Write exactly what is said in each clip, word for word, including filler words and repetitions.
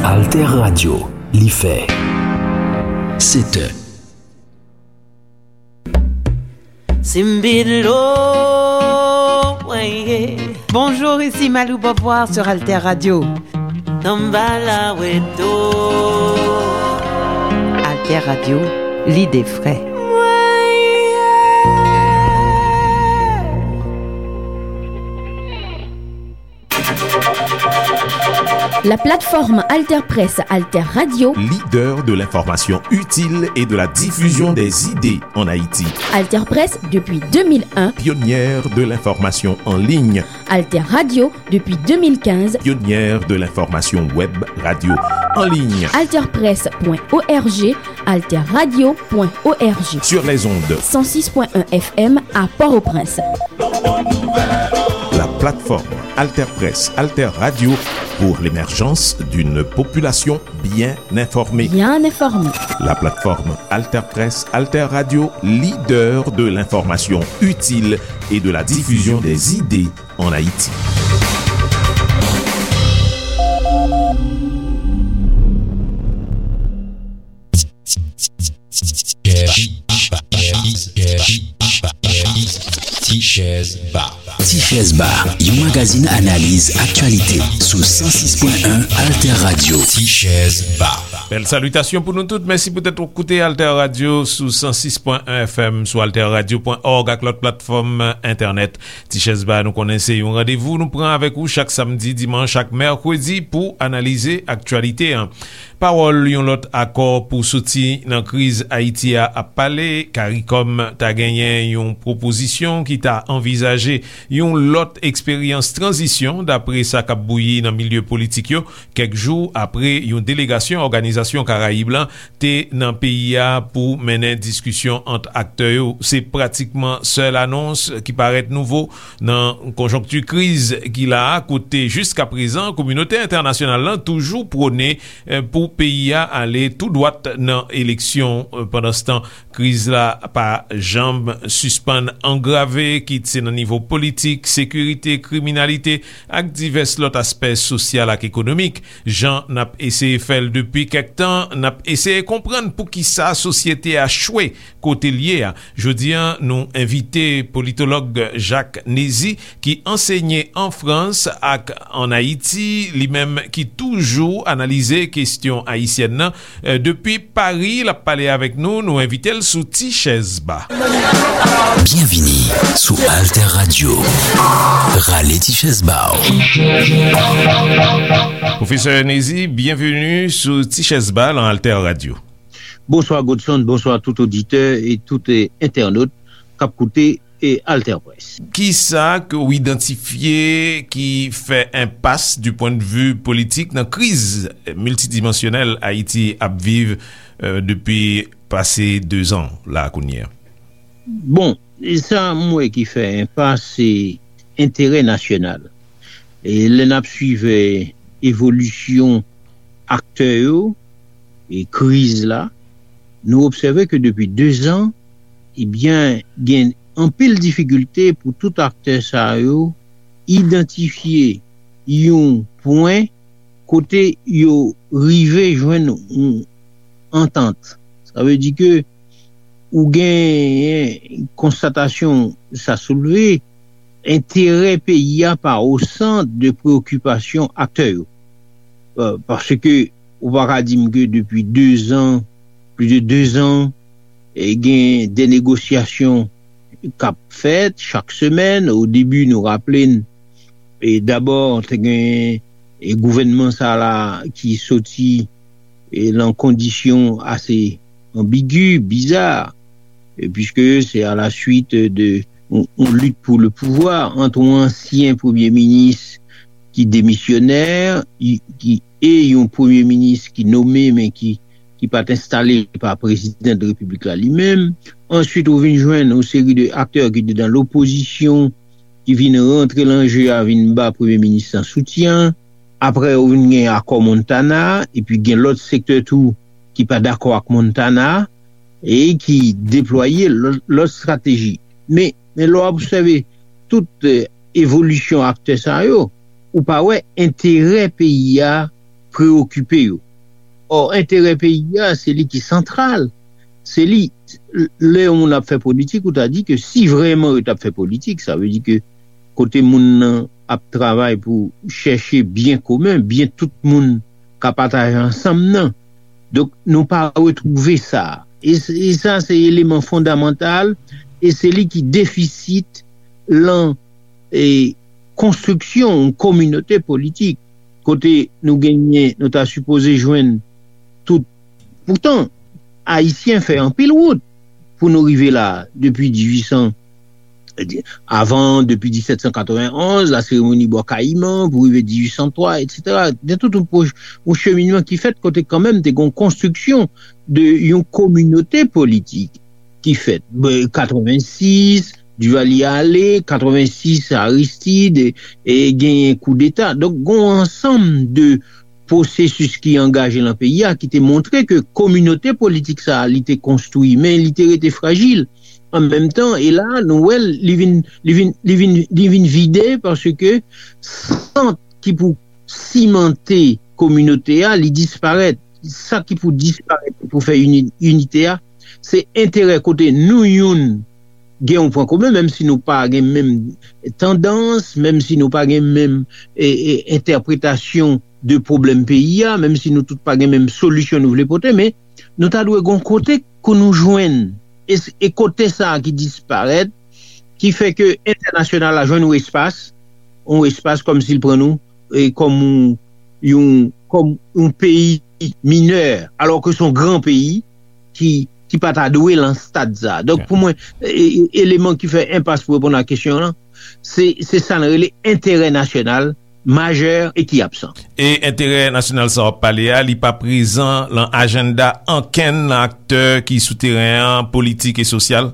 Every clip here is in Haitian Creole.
Alter Radio, li fè sèt è. Simbidlo, weye. Bonjour, ici Malou Beauvoir sur Alter Radio. Tambala weto. Alter Radio, l'idée frais. La plateforme Alter Presse, Alter Radio. Leader de l'information utile et de la diffusion des idées en Haïti. Alter Presse depuis deux mille un. Pionnière de l'information en ligne. Alter Radio depuis deux mille quinze. Pionnière de l'information web radio en ligne. Alter Presse point O R G, Alter Radio point O R G. Sur les ondes. Cent six point un F M à Port-au-Prince. La plateforme Alter Presse, Alter Radio pour l'émergence d'une population bien informée. Bien informée. La plateforme Alter Presse, Alter Radio, leader de l'information utile et de la diffusion des idées en Haïti. Ti Chèz Ba. Ti Chèz Ba, yon magazin analiz aktyalite sou san sis pwen en Alter Radio. Ti Chèz Ba. Bèl salitasyon pou nou tout. Mèsi poutèt w koute Alter Radio sou san sis pwen en F M, sou alter radio pwen org ak lòt platfòm entènèt. Ti Chèz Ba, nou konnen se yon randevou nou pran avèk ou chak samdi, dimanch ak mèkredi pou analize aktyalite an. Pawòl yon lòt akò pou soti nan kriz Ayiti a ap pale. Karikòm ta genyen yon pwopozisyon ki ta anvizaje yon lòt eksperyans tranzisyon, dapre sa k ap bouyi nan milye politik yo, kèk jou apre yon delegasyon Òganizasyon Karayib lan te nan peyi a pou mennen diskisyon ant aktè yo. Se pratikman sèl anons ki parèt nouvo nan konjonkti kriz ki la a, kote jiskaprezan kominote entènasyonal lan toujou pwone eh, pou peyi a ale tou dwat nan eleksyon. Eh, pandanstan, kriz la pa janm sispann angrave, kit se nan nivo politik, sekirite, kriminalite, ak divès lòt aspè sosyal ak ekonomik. Jan n ap eseye fè l depi kèk tan, n ap eseye konprann poukisa sosyete a chwe kote l ye a. Jodi a, nou envite politològ Jacques Nézy, ki ansenye an Frans ak ann Ayiti, li menm ki toujou analize kesyon ayisyèn nan. Eh, depi Pari, l ap pale avèk nou, nou envite l sou Ti Chèz Ba. Byenvini sou Alter Radio. Rale ti chèz ba w. Pwofesè Nézy, byenveni sou Ti Chèz Ba lan Alter Radio. Bonswa Godson, bonswa tout oditè e tout, eh, entènot k ap koute, eh, Alter Presse. Kisa ke w idantifye ki fè enpas du pwen de vi politik nan kriz miltidimansyonèl Ayiti ap viv, eh, depi pase dezan la kounye a? Bon, e sa m wè ki fè enpas, se enterè nasyonal. E lè n ap swiv, eh, evolisyon aktè yo e kriz la, nou obsève ke depi dezan, ebyen, gen anpil difikilte pou tout aktè sa yo idantifye yon pwen kote yo rive jwenn yon antant. Sa vle di ke ou gen konstatasyon sa soulve, enterè peyi a pa o sant de preokipasyon aktè yo. Euh, paske ou pa ka di m ke depi dezan, plis de dezan, e gen de negosyasyon k ap fèt chak semèn. O debi, nou raple n, e dabò, te gen, e gouvènman sa la ki soti, e lan kondisyon ase anbigi, biza, e piske se a la suit de yon, yon lit pou le pouvwa ant yon ansyen premye minis ki demisyonè, i, ki, e yon premye minis ki nome, men ki, ki pa t enstale pa prezidan de repiblik la li menm. Answit, ou vin jwenn yon seri de aktè ki te dan lopozisyon, ki vin rantre lan je a, vin ba premye minis lan soutyen. Apre, ou vin gen akò Montana, epi gen lòt sektè tou ki pa dakò ak Montana, e ki deplwaye lòt, lòt estrateji. Men, men lè w obsève tout, eh, evolisyon aktè sa yo, ou pa wè enterè peyi a preyokipe yo. Ò, enterè peyi a, se li ki santral. Se li, lè yon moun ap fè politik, ou ta di ke si vrèman yo t ap fè politik, sa vle di ke kote moun nan ap travay pou chèche byen komen, byen tout moun ka pataje ansanm nan. Donk, nou pa retwouve sa. E, e sa, se eleman fondamantal, e se li ki defisit lan e, konstriksyon yon kominote politik, kote nou genyen, nou ta sipoze jwenn tout. Poutan, Ayisyen fè anpil wout pou nou rive la, depi dizuit san, avan, depi disèt san katrevenn onz, la seremoni Bò Kayiman, pou rive dizuit san twa, etsetera. Gen tout yon, yon cheminman ki fèt kote kanmenm te gen yon konstriksyon de yon kominote politik ki fèt. Katrevensis, Duvalier ale, katrevensis, Aristide, e genyen koudeta. Donk, gen yon ansanm de pwosesis ki angaje lan peyi a ki te montre ke kominote politik sa a, li te konstwi, men li te rete frajil. An menm tan, e la, nou wè l, li vin, li vin, li vin, li vin vide paske sant ki pou simante kominote a, li disparèt. Sa ki pou disparèt pou fè ini, inite a, se enterè kote nou youn gen yon pwen komen, menm si nou pa gen menm tandans, menm si nou pa gen menm e, e, entèpretasyon de pwoblèm peyi a, menm si nou tout pa gen menm solisyon nou vle pote, men nou ta dwe gen yon kote ke nou jwenn. E, e kote sa a ki disparèt, ki fè ke entènasyonal la jwenn yon espas, yon espas kòmsi l pran nou e, kòm yon, yon, kòm yon peyi minè, alò ke se yon gran peyi ki, ki pa ta dwe lan stad sa. Donk, pou mwen, e, e, eleman ki fè enpas pou reponn a kesyon an, se, se sa n rele enterè nasyonal majè e ki absan. E enterè nasyonal sa w ap pale a, li pa prezan lan ajanda ankenn nan aktè ki sou teren an, politik e sosyal?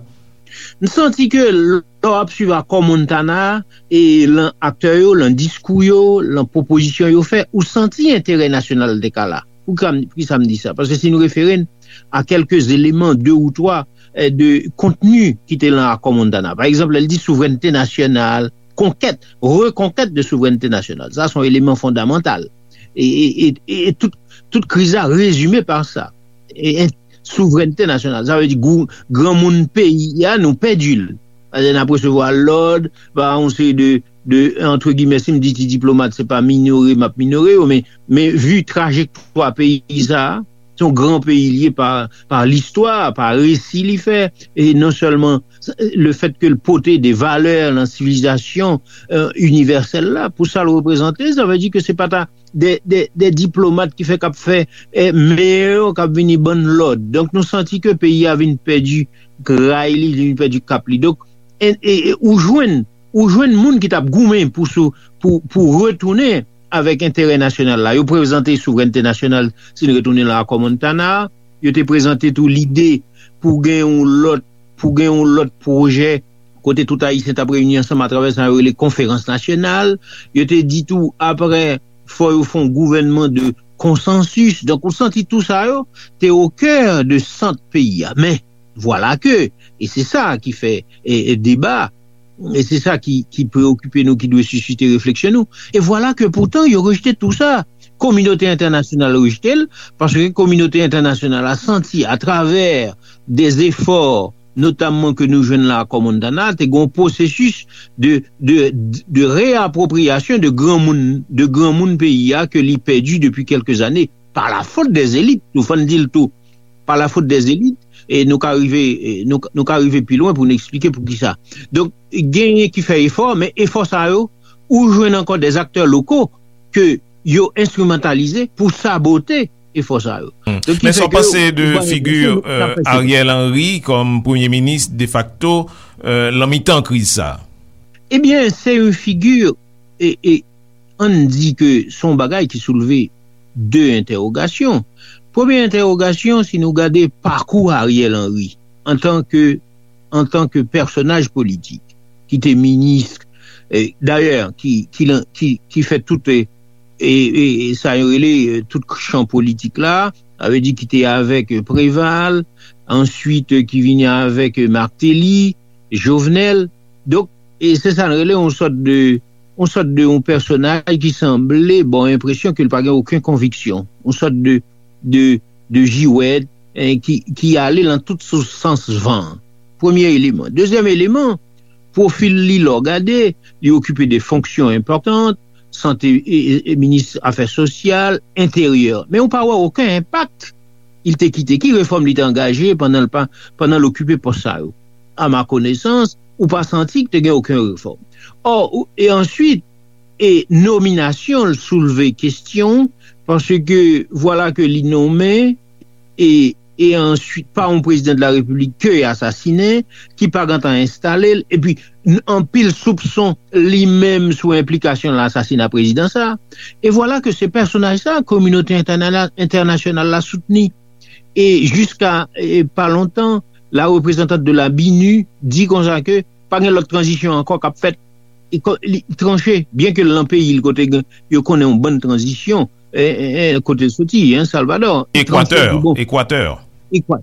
M santi ke lè w ap swiv akò Montana a, e lan aktè yo, lan diskou yo, lan pwopozisyon yo fè, ou santi enterè nasyonal te ka la. Poukisa m, poukisa m di sa? Paske si nou refere n a kèlke eleman, de ou twa, eh, de kontni ki te lan akò Montana. Pa egzanp, lè l di souvrènte nasyonal, konkèt, rekonkèt de souvrènte nasyonal. Sa, se yon eleman fondamantal. E, e, e, e, e tout, tout kriz la rezime pa sa. E, e, souvrènte nasyonal. Sa vle di gou-, granmoun peyi a, nou pèdi l. Paske n ap resevwa lòd pa yon seri de, de, antre gimè, si m di ti diplomat, se pa minore m ap minore yo, men, men vi trajektwa peyi sa a, se yon gran peyi li ye pa, pa listwa, pa resi li fè, e non sèlman le fèt ke l pote de valè nan sivilizasyon, euh, inivèsèl la, pou sa l reprezante, sa vle di ke se pa ta de, de, de diplomat ki fè k ap fè, eh, mè yo k ap vini ban n lòd. Donk, nou santi ke peyi a vin pèdi gray li, li vin pèdi kap li. Donk, e, e, e, ou jwenn, ou jwenn moun ki t ap goumen pou sou, pou, pou retounen avèk enterè nasyonal la. Yo prezante souvrènte nasyonal, si n retounen lan akò Montana, yo te prezante tou lide pou gen yon lòt, pou gen yon lòt pwojè kote tout Ayisyen t ap reyini ansanm atravè sa yo rele konferans nasyonal. Yo te di tou, apre, fò yo fè yon gouvènman de konsansis. Donk, ou santi tou sa yo te o kè de sant peyi a. Men, vwala ke, e se sa ki fè, e, e deba, e se sa ki, ki preyokipe nou, ki dwe sisite refleksyon nou. E vwala ke poutan, yo rejte tou sa. Kominote entènasyonal rejte l, paske kominote entènasyonal la santi atravè de zefò, notamman ke nou jwenn lan akò Montana, te gen yon pwosesis de, de, de reapwopriyasyon de granmoun, de granmoun peyi a ke li pèdi depi kèlke zane, pa la fot dè zelit, nou fò n di l tou, pa la fot dè zelit, e nou ka rive, e nou, nou ka rive pi lwen pou n eksplike poukisa. Donk, genyen ki fè efò, men efò sa yo, ou jwenn ankò dè aktè loko ke yo enstrimantalize pou sabote efò sa yo. Donk, ki fè ke ou pase de figi, euh, Ariel Henry kòm premye minis defakto, euh, lan mitan kriz sa. Ebyen, se yon figi, e, e, ann di ke se yon bagay ki soulve de entèwogasyon. Premye entèwogasyon, si nou gade pakou Ariel Henry antan ke, antan ke pèsonaj politik, ki te minis, e, dayè, ki, ki, ki, ki fè tout, e, e, e, e sa yo rele, e, tout chan politik la, sa vle di ki te avèk, e, Préval, answit, e, ki vini avèk, e, Martelly, Jovenel. Donk, e se sa n rele yon sòt de, yon sòt de yon pèsonaj ki sanble ba w enpresyon ke l pa gen okenn konviksyon. Yon sòt de, de, de jiwèt, eh, ki, ki ale nan tout sou sans van an. Premye eleman. Dezyèm eleman, pwofil li, lè w gade, li okipe de fonksyon enpòtan, sante, e, e, e minis afè sosyal, enteryè. Men ou pa wè okenn enpak li te kite. Ki refòm li te angaje pandan l pa, pandan l okipe pòs sa yo? A ma konesans, ou pa santi ke te gen okenn refòm. Ò, ou- e answit, e nominasyon l soulve kesyon, paske vwala ke li nonmen, e, e answit pa yon prezidan de la repiblik ke asasinen, ki pa gentan enstale l, epi n- anpil soupson li menm sou enplikasyon nan asasina prezidan sa. E vwala ke se pèsonaj sa, kominote entèna- entènasyonal la soutni. E jiska, e, pa lontan, la reprezantant de la binu di konsa ke pa gen lòt tranzisyon ankò k ap fèt. E ko- li tranche, byen ke l nan peyi l kote gen- yo konnen yon bann tranzisyon, e, e, e, kote l soti, en, Salvador. Li tranche, li di, bon, Ekwatè,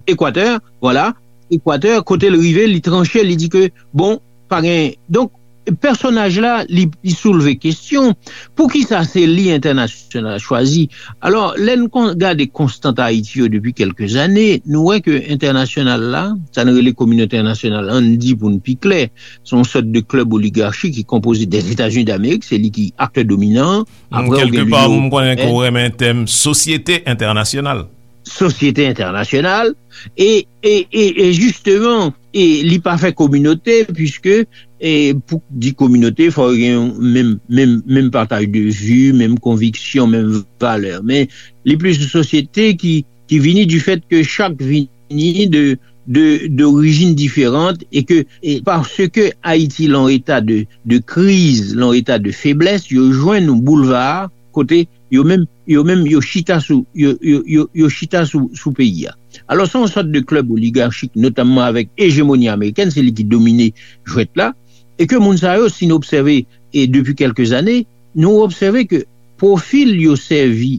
Ekwatè, vwala, Ekwatè, kote l rive, li tranche, li di ke, bon, pa gen. Donk, pèsonaj la, li, li soulve kesyon, poukisa se li entènasyonal la chwazi? Alò, lè n kon- gade konstant Ayiti yo depi kèlke zane, nou wè ke entènasyonal la, sa n rele kominote entènasyonal, ann di pou n pi klè, se yon sòt de klèb oligachi ki konpoze dè Etazini Damerik, se li ki aktè dominan. Apre, ou gen kèlke pa, nou konnen ke w renmen tèm sosyete entènasyonal. Sosyete entènasyonal, e, e, e, e jisteman, e li pa fè kominote, piske, e pou di kominote, fò gen yon menm, menm, menm pataj de vi, menm konviksyon, menm valè. Men li plis yon sosyete ki, ki vini du fèt ke chak vini de, de, d'origine différente, e ke, e paske Ayiti lan eta de, de kriz, lan eta de feblès, yo jwenn yon boulva kote yo menm, yo menm, yo chita sou, yo, yo, yo, yo chita sou, sou peyi a. Alò, se yon sòt de klèb oligachik, notamman avèk ejemoni amerikèn, se li ki domine jwèt la, e ke moun sa yo, si nou obsève, e depi kèlke zane, nou obsève ke pwofil yo sèvi,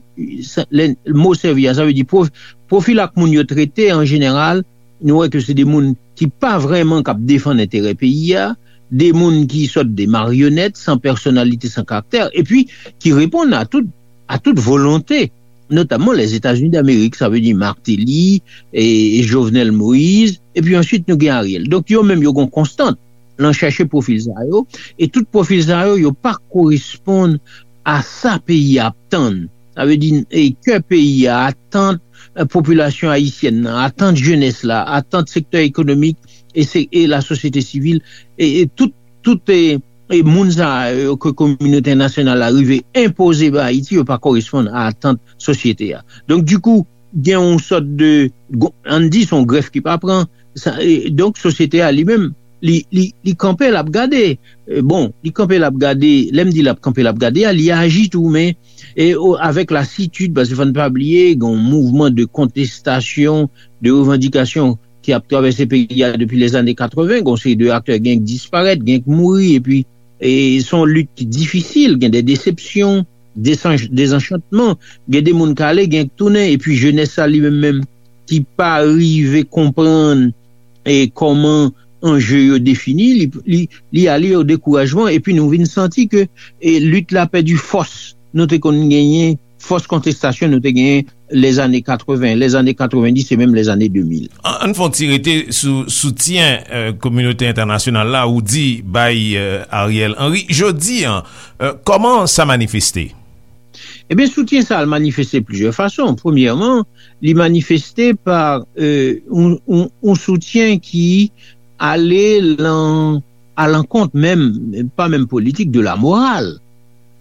sa- lè mo sèvi a, sa vle di pwof- pwofil ak moun yo trete an jeneral, nou wè ke se de moun ki pa vrèman k ap defann enterè peyi a, de moun ki sòt de maryonèt, san pèsonalite, san karaktè, epi ki reponn a tout, a tout volonte, notamman Lèzetazini Damerik, sa vle di Martelly, e Jovenel Moïse, epi answit nou gen Ariel. Donk, yo menm, yo gen konstant lan chèche pwofil sa yo, e tout pwofil sa yo, yo pa koresponn a sa peyi a ap tann. Sa vle di, e kè peyi a, atant, e, popilasyon ayisyèn nan, atant jenès la, atant sektè ekonomik e, se, e lasosyete sivil, e, e tout, tout e, e moun sa yo ke kominote entènasyonal la rive enpoze ba Ayiti, yo pa koresponn a atant sosyete a. Donk, dikou, gen yon sòt de, ann di, se yon grèf ki pa pran. Sa, e, donk, sosyete a li menm, li, li, li kanpe, l ap gade. E, bon, li kanpe, l ap gade. Lè m di l ap kanpe, l ap gade a, li aji tou, men e, o, avèk lasitid, paske fò n pa bliye, gen yon mouvman de kontestasyon, de revandikasyon ki ap travèse peyi a depi lèzane katreven. Gen yon seri de aktè, gen k disparèt, gen k mouri, epi, e, se yon lit ki difisil, gen de desepsyon, desanch- dezanchantman, gen de moun k ale, gen k tounen, epi jenès sa li menm menm ki pa rive konprann, e, kòman anje yo defini, li, li, li ale o dekourajman, epi nou vin santi ke, e, lit la pèdi fòs nou te konn genyen, fòs kontestasyon nou te genyen lèzane katreven, lèzane katrevendis e menm lèzane de mil. An, ann fè yon ti rete sou soutyen, e, kominote entènasyonal la, ou di bay, e, Ariel Henry. Jodi a, e, kòman sa manifeste? Ebyen, soutyen sa a manifeste plizyè fason. Premyèman, li manifeste pa, e, yon, yon, yon soutyen ki ale lan, alankont menm, pa menm politik, de la moral.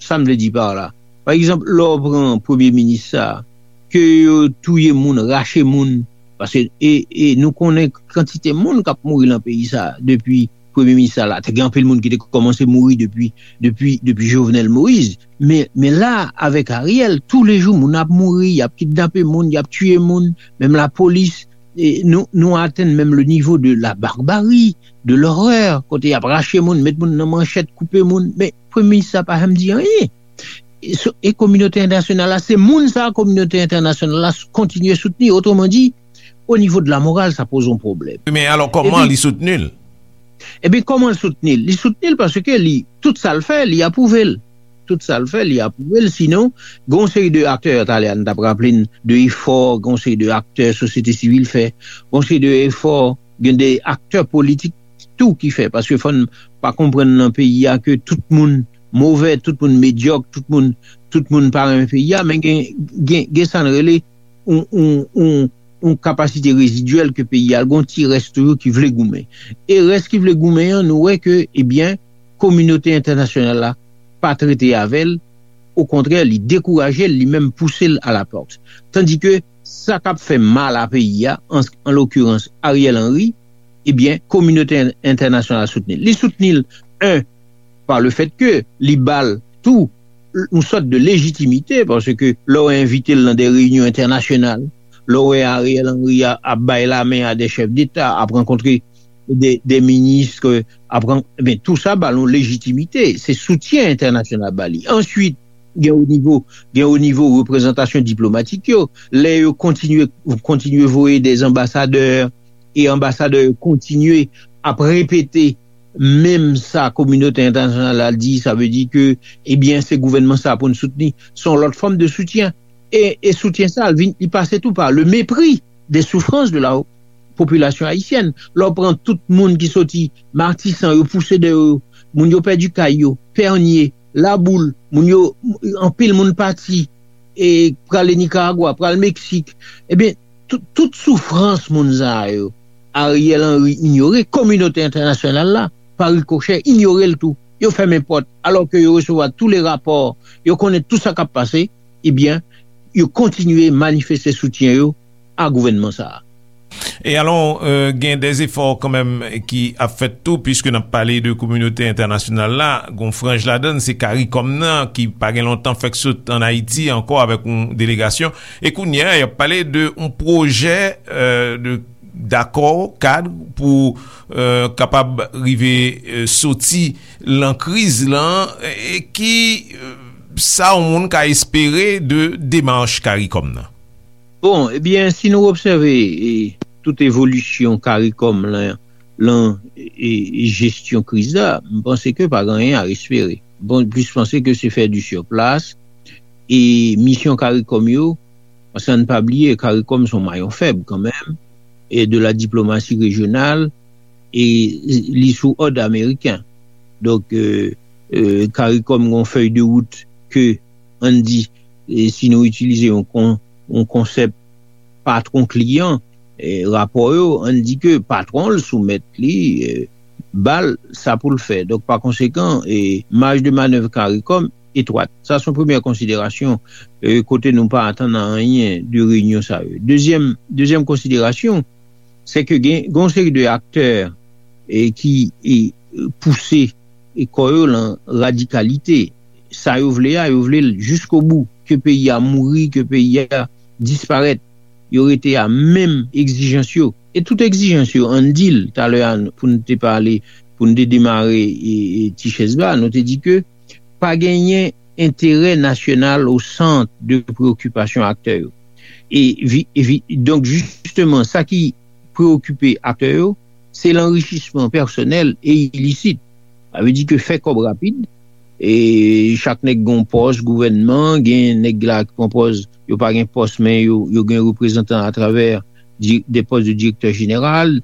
Sa m vle di pa la. Pa egzanp, lè w pran premye minis sa, ke yo touye moun, rache moun, paske, e, e nou konnen kantite moun k ap mouri lan peyi sa depi premye minis sa la. Te gen anpil moun ki te kòmanse mouri depi, depi, depi Jovenel Moïse. Men, men la, avèk Ariel, toulejou moun ap mouri, y ap kidnape moun, y ap tiye moun, menm lapolis, e nou, nou atenn menm le nivo de la barbarie, de l'horreur, kote y ap rache moun, met moun nan manchèt, koupe moun. Men premye minis sa pa janm di anyen. E, so- e kominote entènasyonal la, se moun sa a kominote entènasyonal la s- kontinye soutni. Otreman di, o nivo de la moral, sa poze yon pwoblèm. Men alò, kòman li soutni l? Ebyen, kòman l soutni l? Li soutni l paske li, tout sa l fè, li apwouve l. Tout sa l fè, li apwouve l. Sinon, gen yon seri de aktè, talè a n t ap raple n de efò, gen yon seri de aktè sosyete sivil fè, gen yon seri de efò, gen de aktè politik tou ki fè. Paske fò n pa konprann nan peyi a ke tout moun move, tout moun medyòk, tout moun, tout moun pa renmen peyi a, men gen, gen, gen sa n rele yon, yon, yon, yon kapasite rezidyèl ke peyi a, gen yon ti rès toujou ki vle goumen. E rès ki vle goumen an, nou wè ke, ebyen, kominote entènasyonal la pa trete avè l, okontrè, li dekouraje l, li menm pouse l a la pòt. Tandike sa k ap fè mal a peyi a, an, an lokirans Ariel Henry, ebyen, kominote en- entènasyonal soutni l. Li soutni l, en, pa le fèt ke li ba l tou yon sòt de lejitimite, paske lè w envite l nan de reyinyon entènasyonal, lè w wè Ariel Henry a- ap bay lamen a de chèf deta, ap rankontre de, de minis, ke ap ran- ben, tou sa ba l yon lejitimite. Se soutyen entènasyonal ba li. Answit, gen o nivo, gen o nivo reprezantasyon diplomatik yo, lè yo kontinye, kontinye voye de anbasadè, e anbasadè yo kontinye ap repete menm sa kominote entènasyonal la di, sa vle di ke, ebyen, se gouvènman sa pou n soutni. Se yon lòt fòm de soutyen. E, e soutyen sa, li vin, li pase tou pa le mépris des souffrances de la population haïtienne. Lè w pran tout moun ki soti Matisan, yo pouse dèyè yo, moun yo pèdi kay yo, Pènye, Laboul, moun yo, anpil moun pati, e prale Nikaragwa, pral Meksik. Ebyen, tout, tout soufrans moun sa yo, Ariel Henry inyore, kominote entènasyonal la, pa rikochè, inyore l tou. Yo fèmen pòt, alò ke yo resevwa tou le rapò, yo konnen tou sa k ap pase, ebyen, yo kontinye manifeste soutyen yo a gouvènman sa a. E alò, euh, gen de efò kanmenm ki ap fèt tou, piske n ap pale de kominote entènasyonal la, gon franj ladann, se Karikòm nan, ki pa gen lontan fèk sot an Ayiti ankò avèk yon delegasyon. E kounye a, y ap pale de yon pwojè, euh, de dakò kad pou, euh, kapab rive, euh, soti lan kriz lan, e ki, euh, sa yon moun ka espere de demach Karikòm nan? Bon, ebyen, si nou obsève, e, tout evolisyon Karikòm lan, lan, e, jesyon kriz la, m panse ke pa gen anyen a espere. Bon, plis panse ke se fè di sur plas, e misyon Karikòm yo, paske ann pa bliye, Karikòm se yon mayon fèb kanmenm, e de la diplomasi rejyonal, e li sou òd ameriken. Donk, e, e, Karikòm gen yon fèy de wout ke, ann di, e, si nou itilize yon kon- yon konsèp patwon kliyan, e, rapò yo, ann di ke patwon l soumèt li, e, ba l sa pou l fè. Donk, pa konsekan, e, maj de manèv Karikòm etwat. Sa se yon premyè konsiderasyon, e, kote nou pa atann anyen de reyinyon sa yo. Dezyèm, dezyèm konsiderasyon, se ke gen, gen yon seri de aktè, e, ki, e, pouse, e, kò yo lan radikalite. Sa yo vle a, yo vle l jiskobou, ke peyi a mouri, ke peyi a disparèt. Yo rete a menm egzijans yo. E tout egzijans yo, ann di l, talè a, pou n te pale, pou n te demare, e, e, ti chèz ba, nou te di ke pa genyen enterè nasyonal o sant de preokipasyon aktè yo. E, vi- e vi- donk, jisteman, sa ki preokipe aktè yo, se lanrichisman pèsonèl e ilisit. Sa vle di ke fè kòb rapid, e chak nèg gen yon pòs gouvènman, gen nèg la ki pran pòz, yo pa gen pòs, men yo, yo gen reprezantan atravè di- de pòs de direktè jeneral,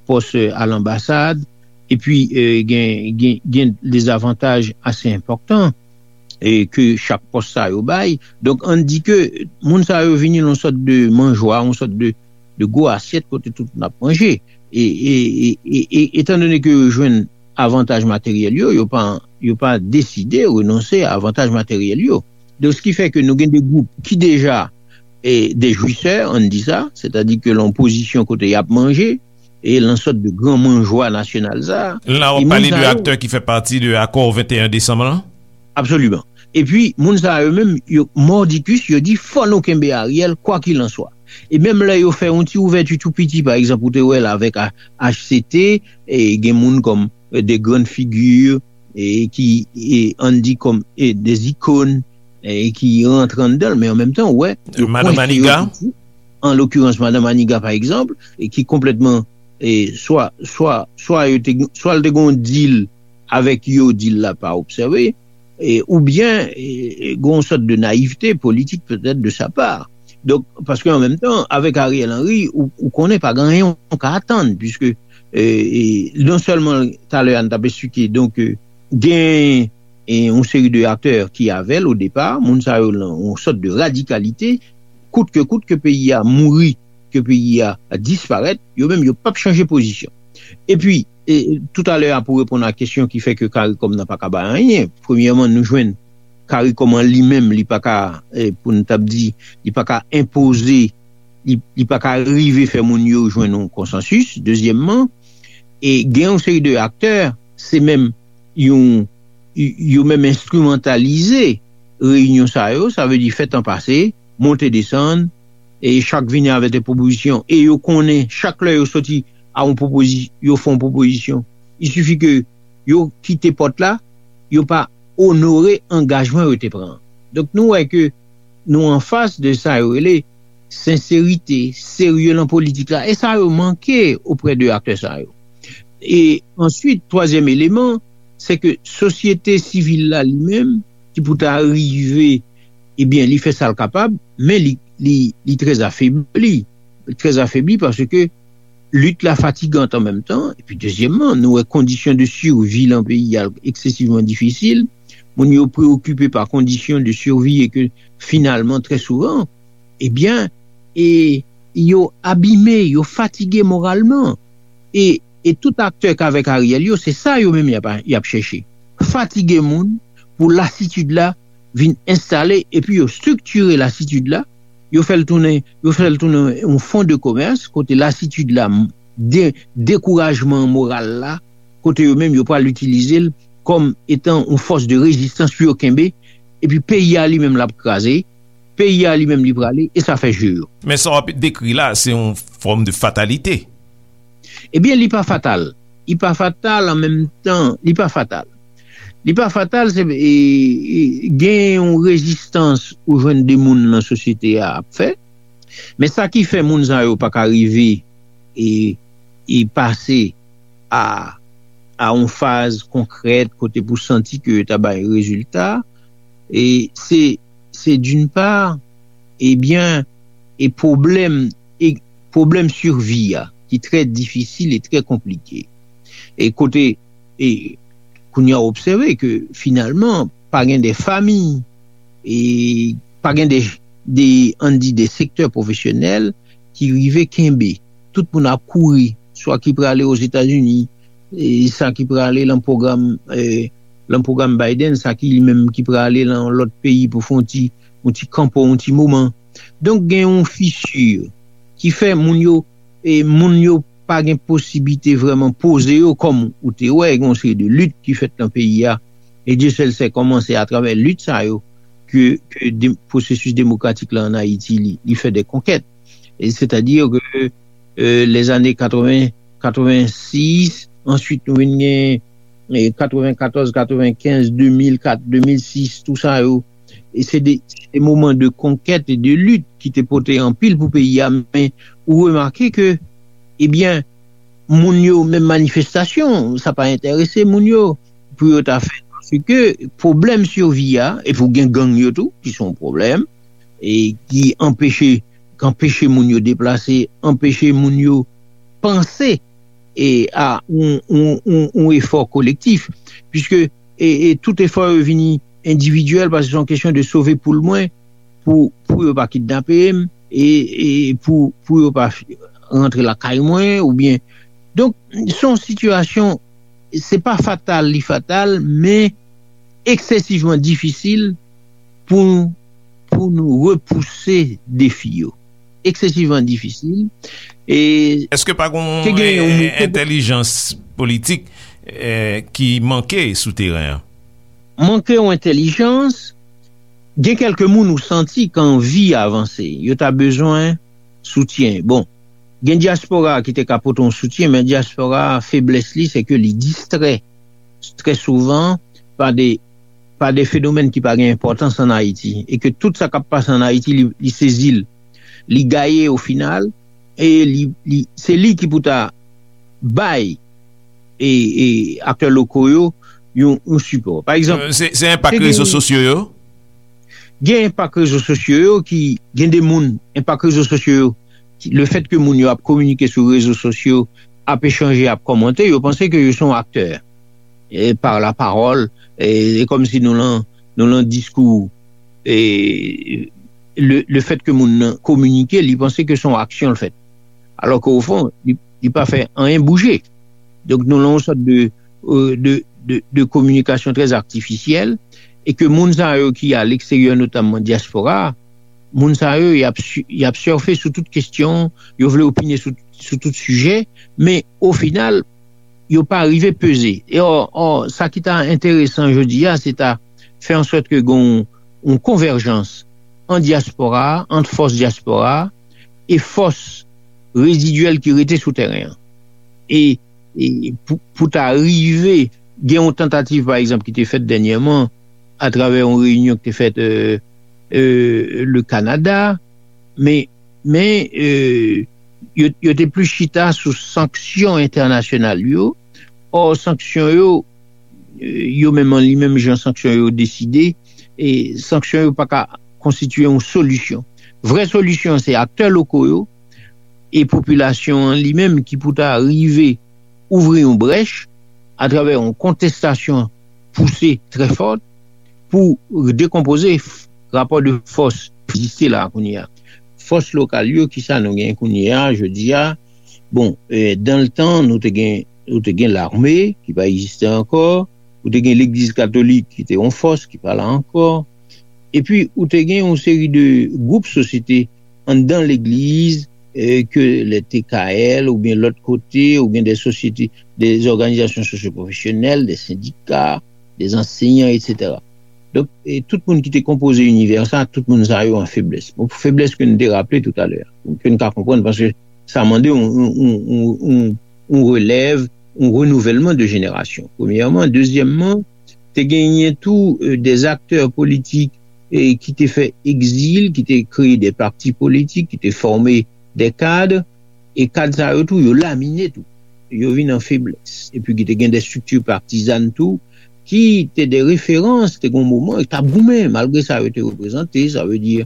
pòs, e, a lanbasad, epi, e, gen, gen, gen de zavantaj ase enpòtan, e, ke chak pòs sa yo bay. Donk, ann di ke moun sa yo vini nan yon sòt de manjwa, yon sòt de, de gwo asyèt kote tout moun ap manje. E, e, e, e, e, etandone ke yo jwenn avantaj materyèl yo, yo pa, yo pa deside renonse a avantaj materyèl yo. Donk, sa ki fè ke nou gen de gwoup ki deja, e, de jwisè, ann di sa, sètadi ke lan pozisyon kote y ap manje, e lan sòt de gran manjwa nasyonal sa a. La, w ap pale de aktè ki fè pati de akò venteyen desanm lan? Absoliman. Epi, moun sa yo menm, yo mòdikis, yo di, fò nou kenbe Ariel, kwakilanswa. E menm lè yo fè yon ti ouvèti tou piti, pa egzanp, ou te wè l avèk A- H C T, e gen moun kòm, e, de grann figi, e ki, e, ann di kòm, e, de ikòn, e ki rantre anndan l, men an menm tan, ou wè, yo Madan kwense yo Maniga. Tou. An lokirans, Madan Maniga, pa egzanp, e ki konplètman e swa swa swa yo te swa l te gen yon deal avèk yo, deal la pa obsève, e, oubyen e, e, gen yon sòt de nayivte politik petèt de sa pa. Donk, paske an menm tan, avèk Ariel Henry, ou, ou konnen pa gen anyen ou ka atann, puiske e, e, non sèlman talè a n t ap esplike, donk, e, gen e, yon seri de aktè ki avè l o depa, moun sa yo lan yon sòt de radikalite, kout ke kout ke peyi a mouri, ke peyi a disparèt, yo menm yo p ap chanje pozisyon. Epi, e, toutalè a pou reponn a kesyon ki fè ke CARICOM nan pa ka bay anyen, premyèman, nou jwenn CARICOM an li menm, li pa ka, e, pou n t ap di, li pa ka enpoze, li, li pa ka rive fè moun yo jwenn yon konsansis. Dezyèmman, e gen yon seri de aktè, se menm yon, yo menm enstrimantalize reyinyon sa yo, sa vle di fè tan pase, monte desann, e chak vini avèk de pwopozisyon, e yo konnen chak lè yo soti a yon pwopozi, yo fè yon pwopozisyon, il sifi ke yo kite pòt la, yo pa onore angajman yo te pran. Donk nou wè ke nou anfas de sa yo rele senserite, serye lan politik la, e sa yo manke oprè de aktè sa yo. E answit, twazyèm eleman, se ke sosyete sivil la li menm, ki pou ta rive, ebyen, li fè sa l kapab, men li, li, li trè afebli. Trè afebli paske lit la fatigan an menm tan. Epi, dezyèmman, nou wè kondisyon de sivi lan peyi a eksesivman difisil. Moun yo preokipe pa kondisyon de sivi e ke finalman, trè souvan, ebyen, e yo abime, yo fatige moralman. E, e tout aktè k avèk Ariel yo, se sa yo menm y ap, y ap chèche. Fatige moun pou lasitid la vin enstale, epi yo estriktire lasitid la, yo fè l tounen, yo fè l tounen yon fon de komès, kote lasitid la de, dekourajman moral la, kote yo menm yo pral itilize l kòm etan yon fòs de rezistans pou yo kenbe, epi peyi a li menm l ap kraze, peyi a li menm li prale, e sa fè je yo. Men sa w ap dekri la, se yon fòm de fatalite. Ebyen, li pa fatal. Li pa fatal an menm tan, li pa fatal. Li pa fatal, se e, e, gen yon rezistans ou jwenn de moun nan sosyete a ap fè. Men sa ki fè moun sa yo pa ka rive e, e pase a, a yon faz konkrèt kote pou santi ke yo ta bay rezilta, e se, se d'une part, ebyen, e pwoblèm, e pwoblèm sivi a, ki trè difisil e trè konplike. E kote, e kounye a obsève ke finalman, pa gen de fami, e pa gen de, de, ann di, de sektè pwofesyonèl ki rive kenbe. Tout moun ap kouri, swa ki prale Ozetazini, e sa ki prale lan pwogram, e, lan pwogram Biden, sa ki li menm ki prale lan lòt peyi pou fè yon ti, yon ti kanpo, yon ti moman. Donk, gen yon fisi ki fè moun yo, e moun yo pa gen posiblite vrèman poze yo, kòm ou te wè, gen yon seri de lit ki fèt nan peyi a. E Dye sèl sè kòman se atravè lit sa yo ke, ke de, pwosesis demokratik la ann Ayiti, li, li fè de konkèt. E sètadi ke, e, lèzane katreven, katrevensis, answit nou vin gen, e, katrevenkatòz, katrevenkenz, de mil kat, de mil sis, tou sa yo, e se de, se de moman de konkèt e de lit ki te pote anpil pou peyi a, men ou remake ke, ebyen, moun yo, menm manifestasyon, sa pa enterese moun yo pou yo ta fè. Paske pwoblèm sivi a, epi w gen gang yo tou, ki se yon pwoblèm, e ki anpeche, ki anpeche moun yo deplase, anpeche moun yo panse e a yon, yon, yon, yon efò kolektif, piske e, e tout efò yo vini endividyèl, paske se yon kesyon de sove poul mwen, pou, pou yo pa kidnape m, e, e pou, pou yo pa rantre lakay mwen, oubyen. Donk, se yon sitiyasyon, se pa fatal, li fatal, men eksesivman difisil pou, pou nou repouse defi yo. Eksesivman difisil. E Èske pa gen ke gen yon, eh, entèlijans politik, eh, ki manke sou teren an? Manke yon entèlijans, gen kèlke moun ou santi ki anvi avanse, yo ta bezwen soutyen. Bon, gen dyaspora ki te ka pote yon soutyen, men dyaspora, feblès li, se ke li distrè trè souvan pa de, pa de fenomèn ki pa gen enpòtans ann Ayiti, e ke tout sa k ap pase ann Ayiti, li, li sezi l, li gaye o final, e li, li, se li ki pou ta bay e, e aktè loko yo yon, yon sipò. Pa egzanp, se enpak rezo sosyo yo? Gen enpak rezo sosyo yo ki gen de moun, enpak rezo sosyo yo, le fèt ke moun yo ap kominike sou rezo sosyo, ap echanje, ap kòmante, yo panse ke yo se yon aktè e, par la parole, e, e kòm si nou lan, nou lan diskou, e, le, le fèt ke moun nan kominike, li panse ke se yon aksyon l fèt. Alò ke o fon, li, li pa fè anyen bouje. Donk nou lan yon sòt de, de, de, de kominikasyon trè atifisyèl e ke moun sa yo ki a leksteryè, notamman dyaspora, moun sa yo, y ap, y ap sèfe sou tout kesyon, yo vle opine sou, sou tout sijè, men o final, yo pa rive peze. E ò, ò, sa ki ta enteresan jodi a, se ta fè an sòt ke gen yon konvèjans an dyaspora, ant fòs dyaspora e fòs rezidyèl ki rete sou teren an. E, e pou, pou ta rive, gen yon tantativ, pa egzanp, ki te fèt dènyèman atravè yon reyinyon ki te fèt e, e, le Kanada, men, men e, yo, yo te plis chita sou sanksyon entènasyonal yo. Ò, sanksyon yo, e, yo menm an li menm jan sanksyon yo deside, e sanksyon yo pa ka konstitye yon solisyon. Vrè solisyon se aktè loko yo e popilasyon an li menm ki pou ta rive ouvri yon brèch atravè yon kontestasyon pouse trè fò pou dekonpoze rapò de fòs ki egziste la kounye a. Fòs lokal yo, kisa nou gen kounye a jodi a? Bon, e, dan le tan, nou te gen, nou te gen lame ki pa egziste ankò, ou te gen legliz katolik ki te yon fòs ki pa la ankò, epi ou te gen yon seri de gwoup sosyete anndan legliz, e, ke le T K L oubyen lòt kote, oubyen de sosyete, de òganizasyon sosyopwofesyonèl, de sendika, de ansenyan, etsetera. Donk, e, tout moun ki te konpoze inivè sa, tout moun sa yo an feblès. Bon, feblès ke nou te raple toutalè, ke nou ka konprann, paske sa mande yon, yon, yon, yon, yon relèv, yon renouvèlman de jenerasyon. Premyèman. Dezyèmman, te genyen tou e, de aktè politik e, ki te fè egzil, ki te kreye de pati politik, ki te fòme de kad, e kad sa yo tou, yo lamine tou. Yo vin an feblès. Epi ki te gen de estrikti patizàn tou, ki te de referans, te gen yon moman, t ap goumen, malgre sa yo te reprezante, sa vle di,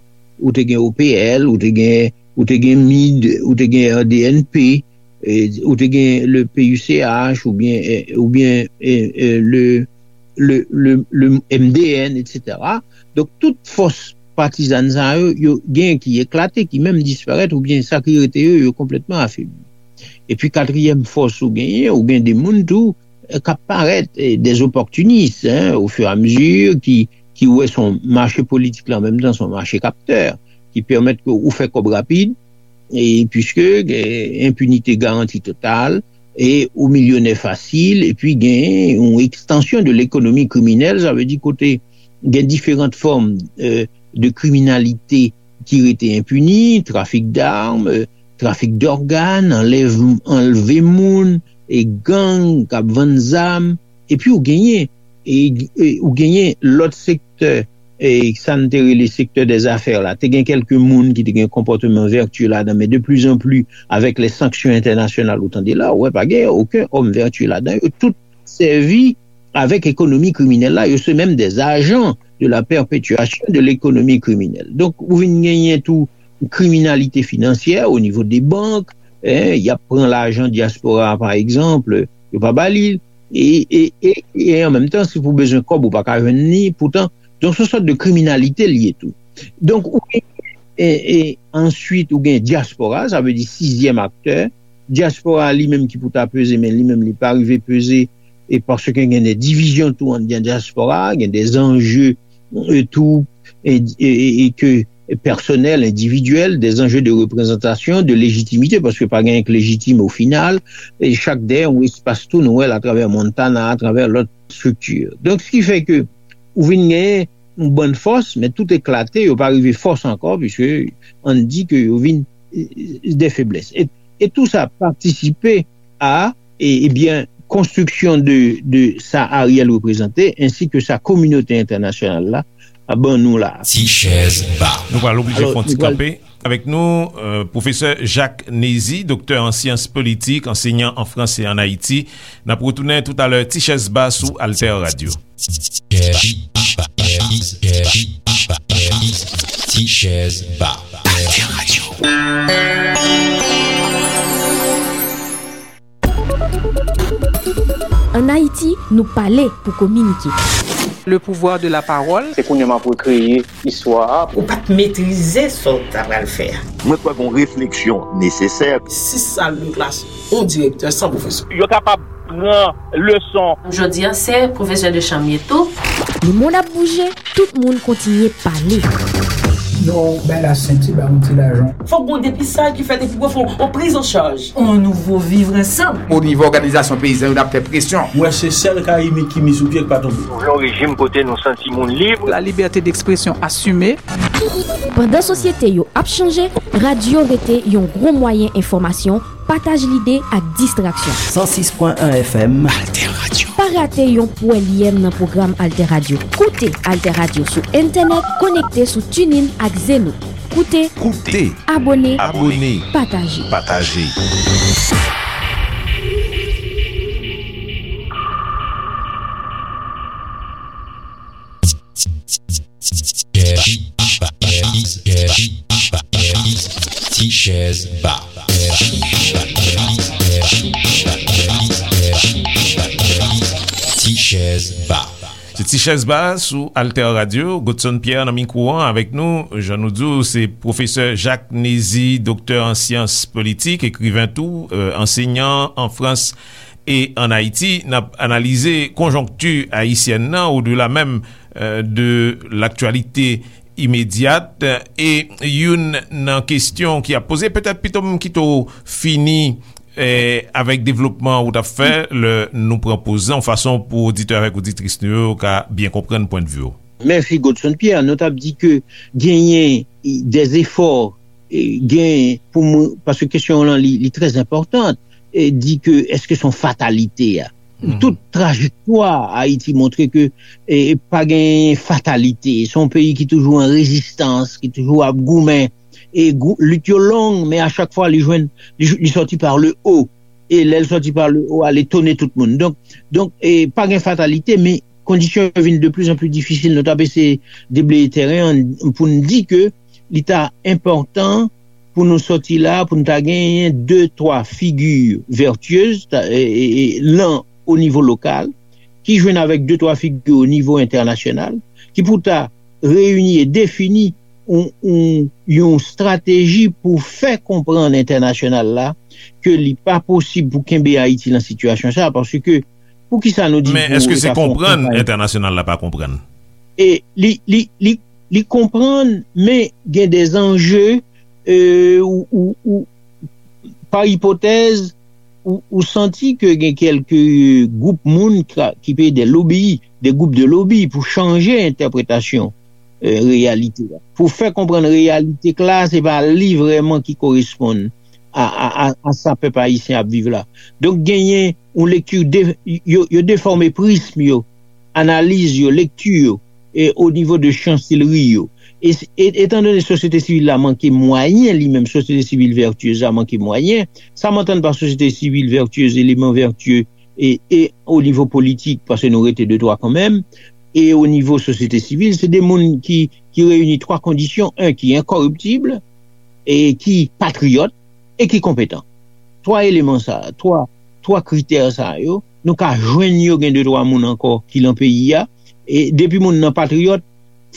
ou te gen O P L, ou te gen, ou te gen mid, ou te gen R D N P, e, ou te gen le P U C H, oubyen, e, oubyen e, e, le, le, le, le M D N, etsetera. Donk, tout fòs patizàn sa yo, yo gen ki eklate, ki menm disparèt, oubyen sa ki rete yo, yo konplètman afebli. Epi katriyèm fòs ou genyen, ou gen de moun tou, e, k ap parèt, e, de opòtinis, hein, au fur et à mesure, ki, ki wè se yon mache politik la, an menm tan se yon mache kaptè, ki pèmèt ke ou fè kòb rapid, e, puiske, e, enpinite garanti total, e ou milyonè fasil, epi gen yon ekstansyon de lekonomi kriminèl, sa vle di kote gen diferan fòm, e, de kriminalite ki rete enpini, trafik dam, e, trafik dògàn, anlèv, anlve moun, e gang k ap vann zam, epi ou genyen, e, e, ou genyen lòt sektè, e, sa n te rele sektè dèzafè la. Te gen kèlke moun ki te gen konpòteman vètye ladan, men de pli an pli, avèk lè sanksyon entènasyonal, ou tande la, ou wè pa gen okenn òm vètye ladan. Yo tout sèvi avèk ekonomi kriminèl la, yo se menm de ajan de la pèpetyasyon de lekonomi kriminèl. Donk, ou vin genyen tou kriminalite finansyè o nivo de bank, en, y ap pran lajan dyaspora a, pa egzanp, yo pa ba li l, e, e, e, e an menm tan, si pou bezwen kòb, ou pa ka jwenn li, poutan, donk, se yon sòt de kriminalite l ye tou. Donk, ou gen, e, e, answit, ou gen dyaspora, sa vle di sizyèm aktè, dyaspora li menm ki pou ta peze, men li menm li pa rive peze, e paske gen de divizyon tou anndan dyaspora, gen de anje e, tou, e, e, e, e ke pèsonèl, endividyèl, de anje de reprezantasyon, de lejitimite, paske pa gen anyen k lejitim o final, e chak dèyè yon espas tou nou wè l atravè Montana, atravè lòt estrikti. Donk, sa ki fè ke ou vin genyen yon bann fòs, men tout eklate, yo pa rive fòs ankò, piske ann di ke yo vin e, de feblès. E, e tou sa patisipe a, e, ebyen, konstriksyon de, de sa Ariel reprezante, ensi ke sa kominote entènasyonal la ap ban nou la. Ti chèz ba. Nou pral oblije fè yon ti kanpe. Avèk nou, euh, pwofesè Jacques Nézy, doktè an syans politik, ansenyan an Frans e an Ayiti. N ap retounen toutalè, Ti chèz ba sou Alter Radio. Ti chèz ba. Alter Radio. Ann Ayiti, nou pale pou kominike. Le pouvoir de la parole. Se kounye a m ap rekreye istwa a. Ou pa t metrize sa w ta pral fè a. Mwen kwè gen yon refleksyon nesesè. Sis sal de klas, yon direktè san pwofesè. Yo kapab pran leson. Jodi a, se pwofesè de chanm ye tou. Lemonn ap bouje, tout moun kontinye pale. Non, bay la senti, ba yon ti lajan. Fòk gon depistaj ki fèt epi pou fè yon priz an chaj. On nouvo vivre ansanm. O nivo òganizasyon peyizan yo, n ap fè presyon. Mwen se sèl kayimit ki mi sou pye k pa tonbe. Nou vle yon rejim kote nou santi moun lib. La liberté d'expression assumée. Pandan sosyete yo ap chanje, radyo rete yon gwo mwayen enfòmasyon, pataj lide ak distraksyon. San sis pwen en F M. Alter Radio. Pa rate yon pwèlyèm nan pwogram Alter Radio. Koute Alter Radio sou entènèt, konekte sou TuneIn ak Zeno. Koute, koute, abòne, abòne, pataje. Pataje. Ti chèz ba. Ti chèz ba. Se Ti chèz ba sou Alter Radio. Godson Pierre nan mikwo an avèk nou. Jan nou di w, se pwofesè Jacques Nézy, doktè an syans politik, ekriven tou, euh, ansenyan an Frans e an Ayiti. N ap analize konjonkti ayisyèn nan, odela menm, euh, de laktyalite imedyat. E youn nan kesyon ki ap poze, petèt pito m kite w fini, eh, avèk devlopman ou t ap fè, lè nou pran poz lan, yon fason pou oditè avèk oditris nou yo ka byen konprann pwennvi w. Mèsi, Godson Pierre. Nou t ap di ke genyen de zefò, eh, genyen pou moun, paske kesyon w lan, li, li trè enpòtan, eh, di ke èske se yon fatalite a? Tout trajektwa Ayiti montre ke, eh, pa gen fatalite. Se yon peyi ki toujou an rezistans, ki toujou ap goumen. E gou-, lit yo long, men a chak fwa li jwenn, li, li sòti par le haut. E lè l sòti par le haut a, li etone tout moun. Donk, donk, eh, pa gen fatalite, men kondisyon yo vin de plus en plus difisil. Nou t ap eseye debleye tèren an pou n di ke li ta enpòtan pou nou sòti la, pou nou ta genyen de, twa figi vètyez, ta, e, e, e, lan o nivo lokal, ki jwenn avèk de, twa figi o nivo entènasyonal, ki pou ta reyini e defini yon, yon, yon estrateji pou fè konprann entènasyonal la ke li pa posib pou kenbe Ayiti lan sitiyasyon sa, paske poukisa nou di... Men èske se konprann entènasyonal la pa konprann? E li, li, li, li konprann, men gen de zanje, e, ou, ou, ou, pa ipotèz, ou, ou santi ke gen kèlke gwoup moun ka, ki peye de lobi, de gwoup de lobi pou chanje entèpretasyon, e, reyalite a. Pou fè konprann reyalite k la, se pa li vrèman ki koresponn a, a, a, a sa pèp ayisyen ap viv la. Donk, genyen yon lekti de, yo, yo defòme prizm yo, analiz yo, lekti yo, e o nivo de chansilri yo. E, e, etandone sosyete sivil la manke mwayen, li menm, sosyete sivil vètyez la manke mwayen, sa m antann pa sosyete sivil vètyez, eleman vètye, e, e o nivo politik, paske nou rete de twa kanmenm, e o nivo sosyete sivil, se de moun ki, ki reyini twa kondisyon, en, ki enkòriptib, e ki patriyòt, e ki konpetan. Twa eleman sa, twa, twa kritè sa yo, nou ka jwenn yo gen de twa moun ankò ki lan peyi a. E depi moun nan patriyòt,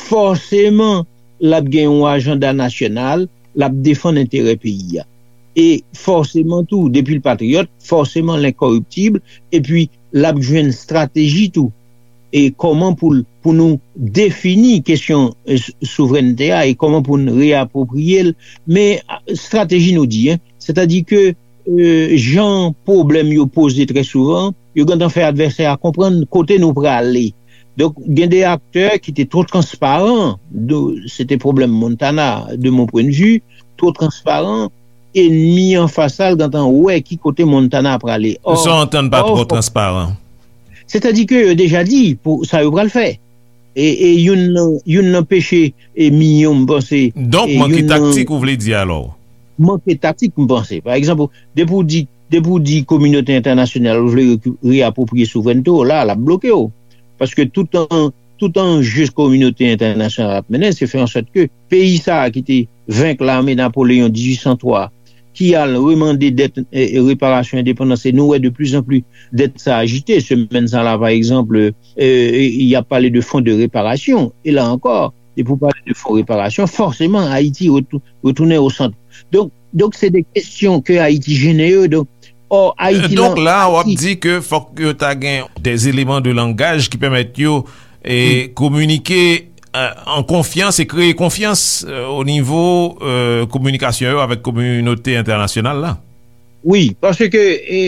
fòseman, l ap gen yon ajanda nasyonal, l ap defann enterè peyi a. E fòseman tou, depi l patriyòt, fòseman l enkòriptib, epi l ap jwenn estrateji tou. E kòman pou l, pou nou defini kesyon, e, s-, souvrènte a e kòman pou n reyapwopriye l. Men, a, estrateji nou di, en, sètadi ke, e, jan pwoblèm yo poze trè souvan, yo gentan fè advèsè a konprann kote nou prale. Donk, gen de aktè ki te twò transparan, de, se te pwoblèm Montana, de mon point de vue, twò transparan, enmi anfas la, l gentan wè ki kote Montana prale. Ò, sa w antann pa twò transparan? Sètadi ke yo deja di pou sa yo pral fè. E, e youn nan, youn nan peche e minyon, m panse, Donk, e manke youn nan taktik, ou vle di alò? Manke taktik, m panse. Pa egzanp, depi w di, depi w di kominote entènasyonal, ou vle reku- reapwopriye souvrènte w, la, l ap bloke w. Paske tout an, tout anje kominote entènasyonal ap mennen, se fè an sòt ke peyi sa a ki te venk lame Napoleyon dizuit san twa, ki al remande dèt, e, e, reparasyon endepandans, e nou wè de plus en plus dèt sa ajite. Semèn sa la, pa egzanp, e, e, y ap pale de fon de reparasyon. E la ankò, depi w pale de fon reparasyon, fòseman, Ayiti retou- retounen o sant. Donk, donk se de kesyon ke Ayiti jennen yo. Donk, ò, Ayiti Donk la, w ap di ke fòk yo ta gen des éléments de langage ki pèmèt yo e kominike, e, an konfyans e kreye konfyans, e, o nivo, e, kominikasyon yo avèk kominote entènasyonal la. Wi, paske, e,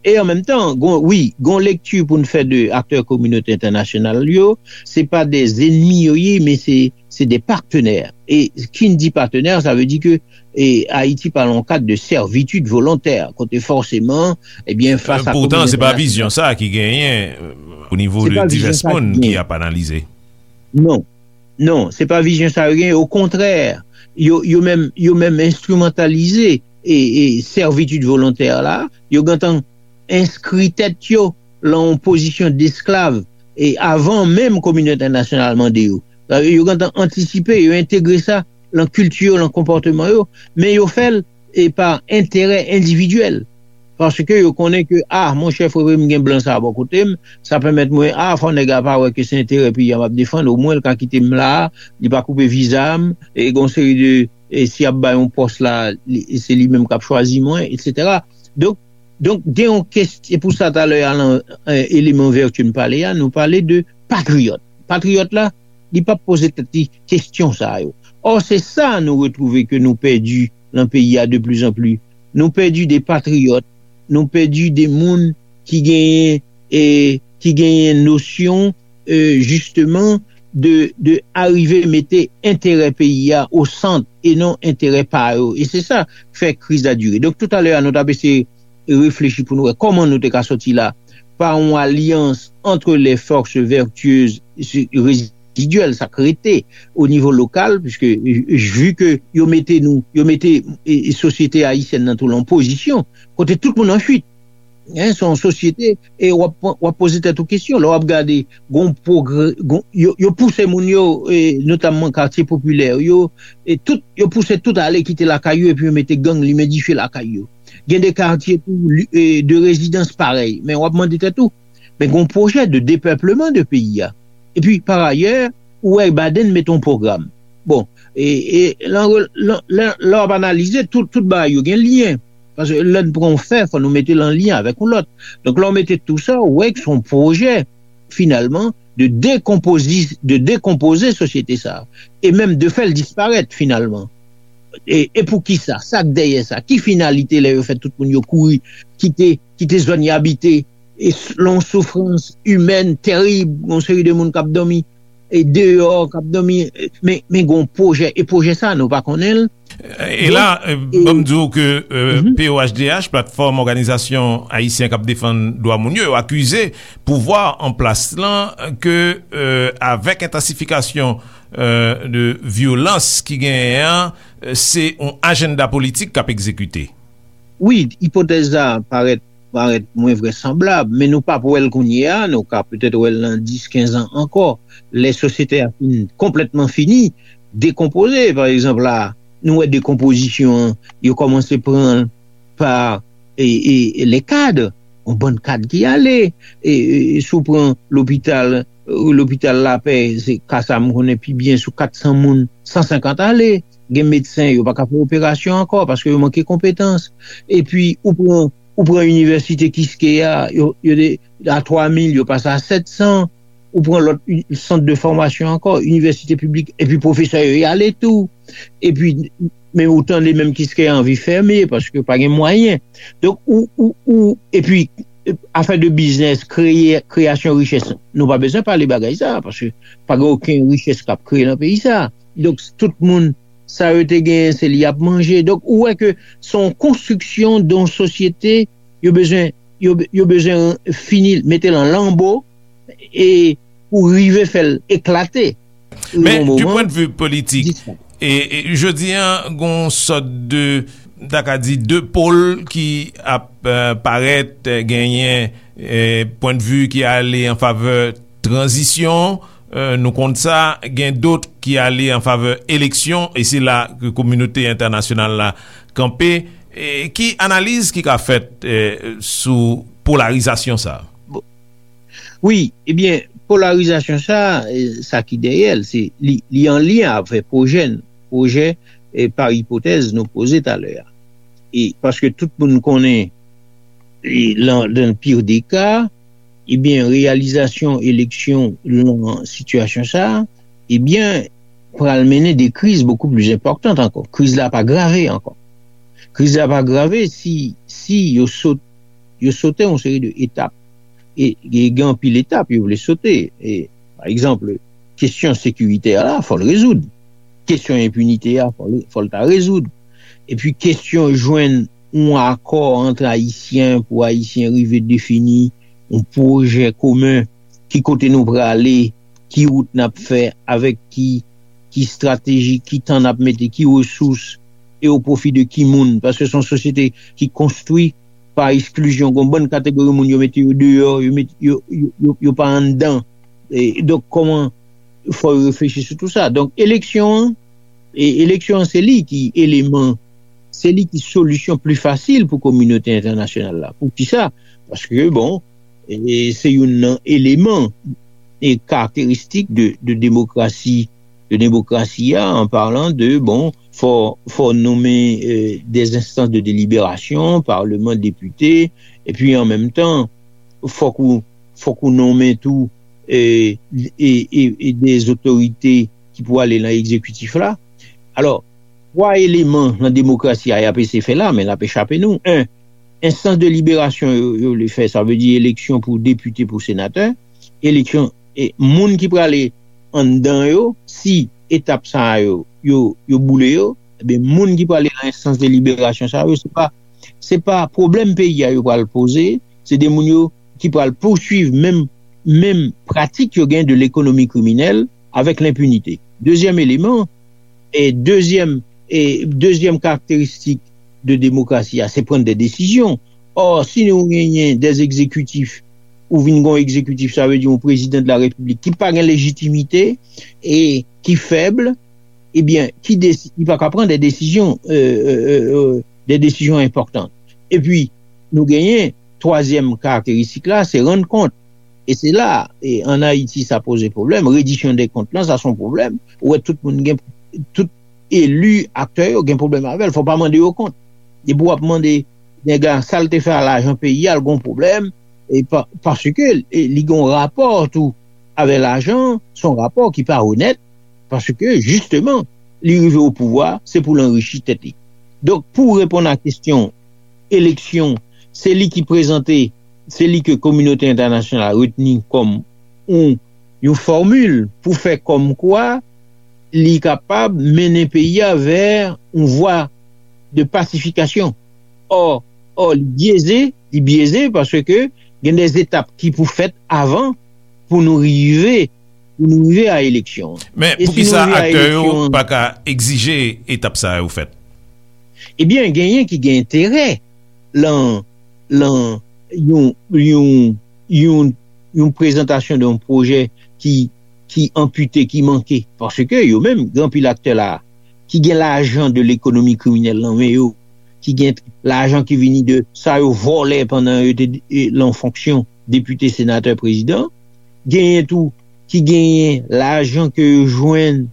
e an menm tan, gon, wi, gon lekti pou n fè de aktè kominote entènasyonal yo, se pa de zenmi yo ye, men se, se de patenè. E ki n di patenè, sa vle di ke e Ayiti pa nan yon kad de sèvitid volontè, kote fòseman, ebyen, fas a Poutan, se pa vizyon sa ki genyen, e, o nivo de divès moun ki ap analize. Non, non, se pa vizyon sa yo genyen. Okontrè, yo, yo menm, yo menm enstrimantalize e, e sèvitid volontè la, yo gentan enskri tèt yo lan yon pozisyon desklav e avan menm kominote entènasyonal mande yo. Yo gentan antisipe, yo entegre sa lan kilti yo, lan konpòteman yo, men yo fè l e pa enterè endividyèl. Paske yo konnen ke, a, monchè, frè m, gen blan sa a bò kote m, sa pèmèt mwen, a, fò nèg la pa wè ke se enterè peyi a m ap defann, omwen l ka kite m la, li pa koupe viza m, e gon seri de, e si y ap bay yon pòs la, li- se li menm k ap chwazi mwen, etsetera. Donk, donk, gen yon kesyon, e pou sa talè a, lan, e, eleman vètye n pale a, nou pale de patriyòt. Patriyòt la, li p ap poze tèt li kesyon sa yo. Ò, se sa nou retwouve ke nou pèdi lan peyi a de plus en plus. Nou pèdi de patriyòt, nou pèdi de moun ki genyen, e, ki genyen nosyon, e, jisteman, de, de arive mete enterè peyi a o sant e non enterè pa yo. E se sa k fè kriz la dire. Donk, toutalè a, nou t ap eseye reflechi pou nou wè kòman nou te ka sòti la pa yon alyans entre les forces vertueuses rezidyèl, sa k rete o nivo lokal, piske, e, vi ke yo mete nou, yo mete, e, e, sosyete ayisyèn nan tou lan pozisyon kote tout moun an fuit. Hein, se yon sosyete, e w ap, w ap poze tèt ou kesyon. Lè w ap gade, gon pwogrè, gon, yo, yo pouse moun yo, e, notamman katye popilè yo, e tout, yo pouse tout ale kite lakay yo, epi yo mete gang, limen dife lakay yo. Gen de katye tou, li- e, de rezidans parèy. Men w ap mande tèt ou, men gon pwojè de depèpleman de peyi a. Epi, pa ayè, ou wè Biden mete yon pwogram. Bon, e, e, lan re- lan- lè lè w ap analize, tout, tout bagay yo gen lyen. Paske lè n pran yon fè, fò nou mete l an lyen avèk yon lòt. Donk, lè w mete tou sa, ou wè ke se yon pwojè, finalman, de dekonpozi- de dekonpoze sosyete sa a, e menm de fè l disparèt, finalman. E, e pou ki sa? Sa k dèyè sa? Ki finalite lè yo fè tout moun yo kouri, kite, kite zòn y abite, e s- lan yon soufrans imèn tèrib, yon seri de moun k ap dòmi, e deyò, k ap dòmi, e, men, men gon pwojè, e pwojè sa, nou pa konnen l. E la, e, ban m di w ke, e, P O H D H, Platfòm Òganizasyon Ayisyen k ap Defann Dwa Moun yo, yo akize pouvwa an plas lan ke, e, avèk entansifikasyon, e, de vyolans ki genyen an, e, se yon ajanda politik k ap egzekite. Wi, ipotèz la parèt, parèt mwen vrèsanblab, men nou p ap wè l kounye a, nou ka petèt wè l nan dis, kenz an ankò, lè sosyete a fin konplètman fini, dekonpoze. Pa egzanp, la, nou wè dekonpozisyon an, yo kòmanse pran l pa, e, e, e, les cadres, yon bann kad ki ale, e, e, si w pran lopital, e, lopital Lapè, se ka sa m konnen pi byen, sou kat san moun, san senkant ale, gen medsen, yo pa ka fè operasyon ankò, paske yo manke konpetans. Epi, ou pran, ou pran inivèsite Kiskeya, yo, yo te a twa mil, yo pase a sèt san, ou pran lòt sant de fòmasyon ankò, inivèsite piblik, epi pwofesè yo y ale tou. Epi, men ou tande menm Kiskeya anvi fèmen, paske pa gen mwayen. Donk, ou, ou, ou, epi, afè de biznis, kreye, kreyasyon richès, nou pa bezwen pale bagay sa, paske pa gen okenn richès k ap kreye nan peyi sa. Donk, tout moun, sa yo te genyen, se li y ap manje. Donk, ou wè ke se yon konstriksyon de yon sosyete, yo bezwen, yo, yo bezwen fini, mete l an lanbo, e pou rive fè l eklate. Men, du point de vue politik, e, e, jodi an, gon sòt de, ta ka di, de pôle ki ap, euh, parèt, euh, genyen, euh, point de vue ki ale an favè tranzisyon, euh, nou konn sa, gen dòt ki ale an favè eleksyon, e se la ke kominote entènasyonal la kanpe. E ki analiz ki ka fèt, euh, sou polarizasyon sa? Wi, ebyen, polarizasyon sa, eh, sa ki dèyè l, se li, li an lyen avè pwojè n, pwojè, eh, pa ipotèz nou poze talè a. E paske tout moun konnen, e, lan, dan l pire de ka, ebyen, reyalizasyon eleksyon lan sitiyasyon sa, ebyen, pral mennen de kriz bokou pli enpòtan ankò. Kriz la pa grave ankò. Kriz la pa grave si, si yo sot, yo sote yon seri de etap. E, e gen anpil etap yo vle sote. E, pa egzanp, kesyon sekiritè la, fò l rezoud. Kesyon enpinite a, fò l, fò l ta rezoud. Epi kesyon jwenn yon akò ant Ayisyen pou Ayisyen rive defini yon pwojè komen, ki kote nou prale, ki wout n ap fè, avèk ki, ki estrateji, ki tan n ap mete, ki resous, e o pwofi de ki moun. Paske se yon sosyete ki konstwi pa eksklizyon. Gon bann kategori moun yo mete yo deyò, yo, met, yo, yo, yo, yo pa anndan. E, donk, kòman fò yo reflechi sou tou sa? Donk, eleksyon an, e, eleksyon an, se li ki eleman, se li ki solisyon pli fasil pou kominote entènasyonal la. Poukisa? Paske, bon, e, se youn nan eleman e karakteristik de, de demokrasi, de demokrasi a, an palan de, bon, fò, fò nonmen, e, des instances de délibération, palman, depite, epi an menm tan, fòk ou, fòk ou nonmen tou, e, e, e, e des otorite ki pou ale nan egzekitif la. Alò, twa eleman nan demokrasi a y ap eseye fè la, men l ap echape nou. En, enstans de liberasyon yo, yo vle fè, sa vle di eleksyon pou depite, pou senatè, eleksyon, e moun ki prale anndan yo, si etap sa yo, yo, yo boule yo, ebyen, moun ki prale nan enstans de liberasyon sa yo, se pa, se pa pwoblèm peyi a yo pral poze, se de moun yo ki pral pouswiv menm, menm pratik yo gen de lekonomi kriminèl avèk lenpinite. Dezyèm eleman, e dezyèm, e dezyèm karakteristik de demokrasi a, se pran de desizyon. Ò, si nou genyen de egzekitif, ou vin gon egzekitif, sa vle di yon prezidan de la repiblik ki pa gen lejitimite e ki fèb, ebyen, ki desi-, li pa ka pran de desizyon, e, e, e, e, de desizyon enpòtan. Epi, nou genyen twazyèm karakteristik la, se rann kont. E se la, e, ann Ayiti, sa poze pwoblèm. Rediksyon de kont lan, sa se yon pwoblèm. Ou wè tout moun gen, tout eli, aktè yo gen pwoblèm avè l. Fò w pa mande yo kont. Depi w ap mande nèg la sa l te fè a lajan peyi a, l gon pwoblèm. E pa, paske, e, li gon rapò tou avè lajan, se yon rapò ki pa onèt, paske, jisteman, li rive o pouvwa, se pou l anrichi tèt li. Donk, pou reponn a kesyon eleksyon, se li ki prezante, se li ke kominote entènasyonal la retni kòm yon, yon fòmil pou fè kòmkwa li kapab mennen peyi a vè yon vwa de pasifikasyon. Ò, ò, li byeze, li byeze paske gen de etap ki pou fèt avan pou nou rive, pou nou rive a eleksyon. Men, e si poukisa nou rive a aktè yo eleksyon pa ka egzije etap sa yo fèt? Ebyen, genyen ki gen enterè lan, lan yon, yon, yon, yon prezantasyon de yon pwojè ki, ki anpite, ki manke. Paske yo menm, gen anpil aktè la, ki gen lajan de lekonomi kriminèl nan men yo, ki gen lajan ki vini de sa yo vòlè pandan yo te, e, lan fonksyon depite, senatè, prezidan. Genyen tou ki genyen lajan ke yo jwenn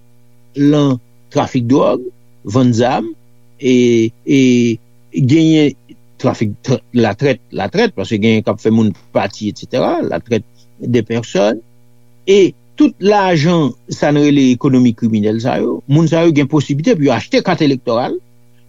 lan trafik dwòg, vann zam, e, e genyen trafik, tra-, latrèt, latrèt, paske genyen k ap fè moun pati, etsetera, latrèt de pèsòn. E tout lajan, sa n rele ekonomi kriminèl sa yo, moun sa yo gen posiblite pou yo achte kat elektoral,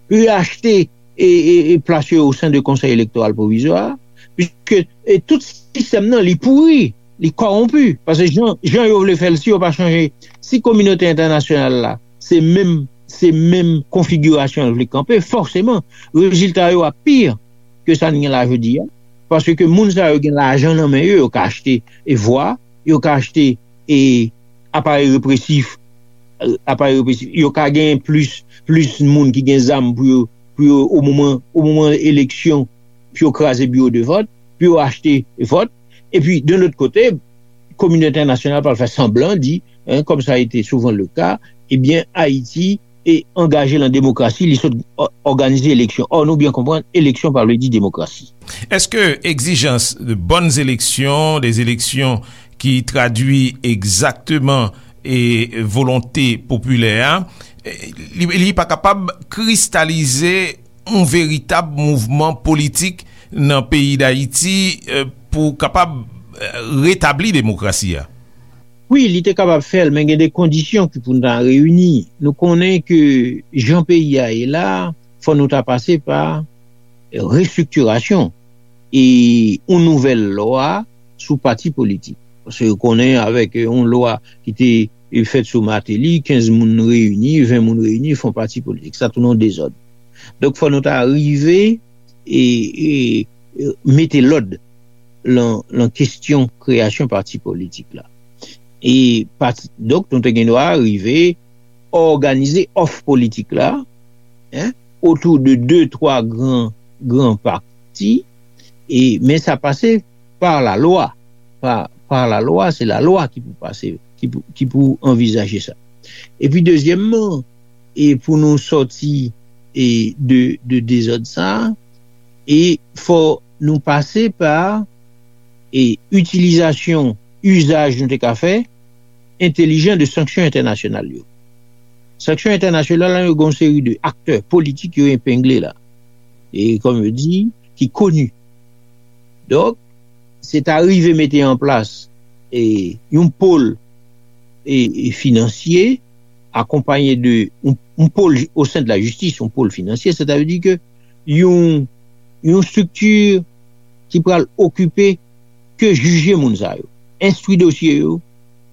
pou yo achte e, e, e plas yo o sen de Konsèy Elektoral Pwovizwa, piske, e, tout sistèm nan, li pouri, li kòwonpi. Paske jan, jan yo vle fè l, si yo pa chanje, si kominote entènasyonal la, se menm, se menm konfigirasyon l vle kanpe, fòseman, rezilta yo ap pi ke sa n gen la jodi a. Paske moun sa yo gen lajan nan men yo, yo ka achte e vwa, yo ka achte e aparèy represif, aparèy represif, yo ka gen plis, plis moun ki gen zam pou yo, pou yo, o moman, o moman eleksyon, pou yo kraze biwo de vòt, pou yo achte vòt. Epi, de lòt kote, kominote entènasyonal pral fè sanblan di, hein, comme ça a été souvent le cas, ebyen, Ayiti e angaje lan demokrasi, li sot òganize eleksyon. Ò, nou byen konprann, eleksyon pa vle di demokrasi. Est-ce que exigence de bonnes élections, des élections qui traduit exactement e volonte popilè a, li, li pa kapab kristalize yon veritab mouvman politik nan peyi Dayiti pou kapab retabli demokrasi a? Wi, li te kapab fè l, men gen de kondisyon ki pou n ta reyini. Nou konnen ke jan peyi a ye la, fò nou ta pase pa restriktirasyon e yon nouvèl lwa sou pati politik. Paske yo konnen avèk yon lwa ki te fèt sou Martelly, kenz moun reyini, ven moun reyini, fè yon pati politik. Sa tounen yon dezòd. Donk, fò nou ta rive e, e, e mete lòd lan, lan kesyon kreyasyon pati politik la. E pati, donk, nou te gen dwa rive òganize òf politik la, hein, otou de de, twa gran, gran pati, e, men sa pase pa lalwa. Pa, pa lalwa, se lalwa ki pou pase, ki pou, ki pou anvizaje sa. Epi dezyèmman, e pou nou sòti e de, de dezòd sa, e fò nou pase pa e itilizasyon, izaj nou te ka fè, entelijan de sanksyon entènasyonal yo. Sanksyon entènasyonal la, yo gen yon seri de aktè politik yo epengle la. E kòm yo di, ki koni. Donk, se ta rive mete an plas e yon pol e, e finansye, akonpaye de yon, yon pol o sen de la jistis, yon pol finansye, sètadi ke yon, yon estrikti ki pral okipe ke jije moun sa yo, enstwi dosye yo,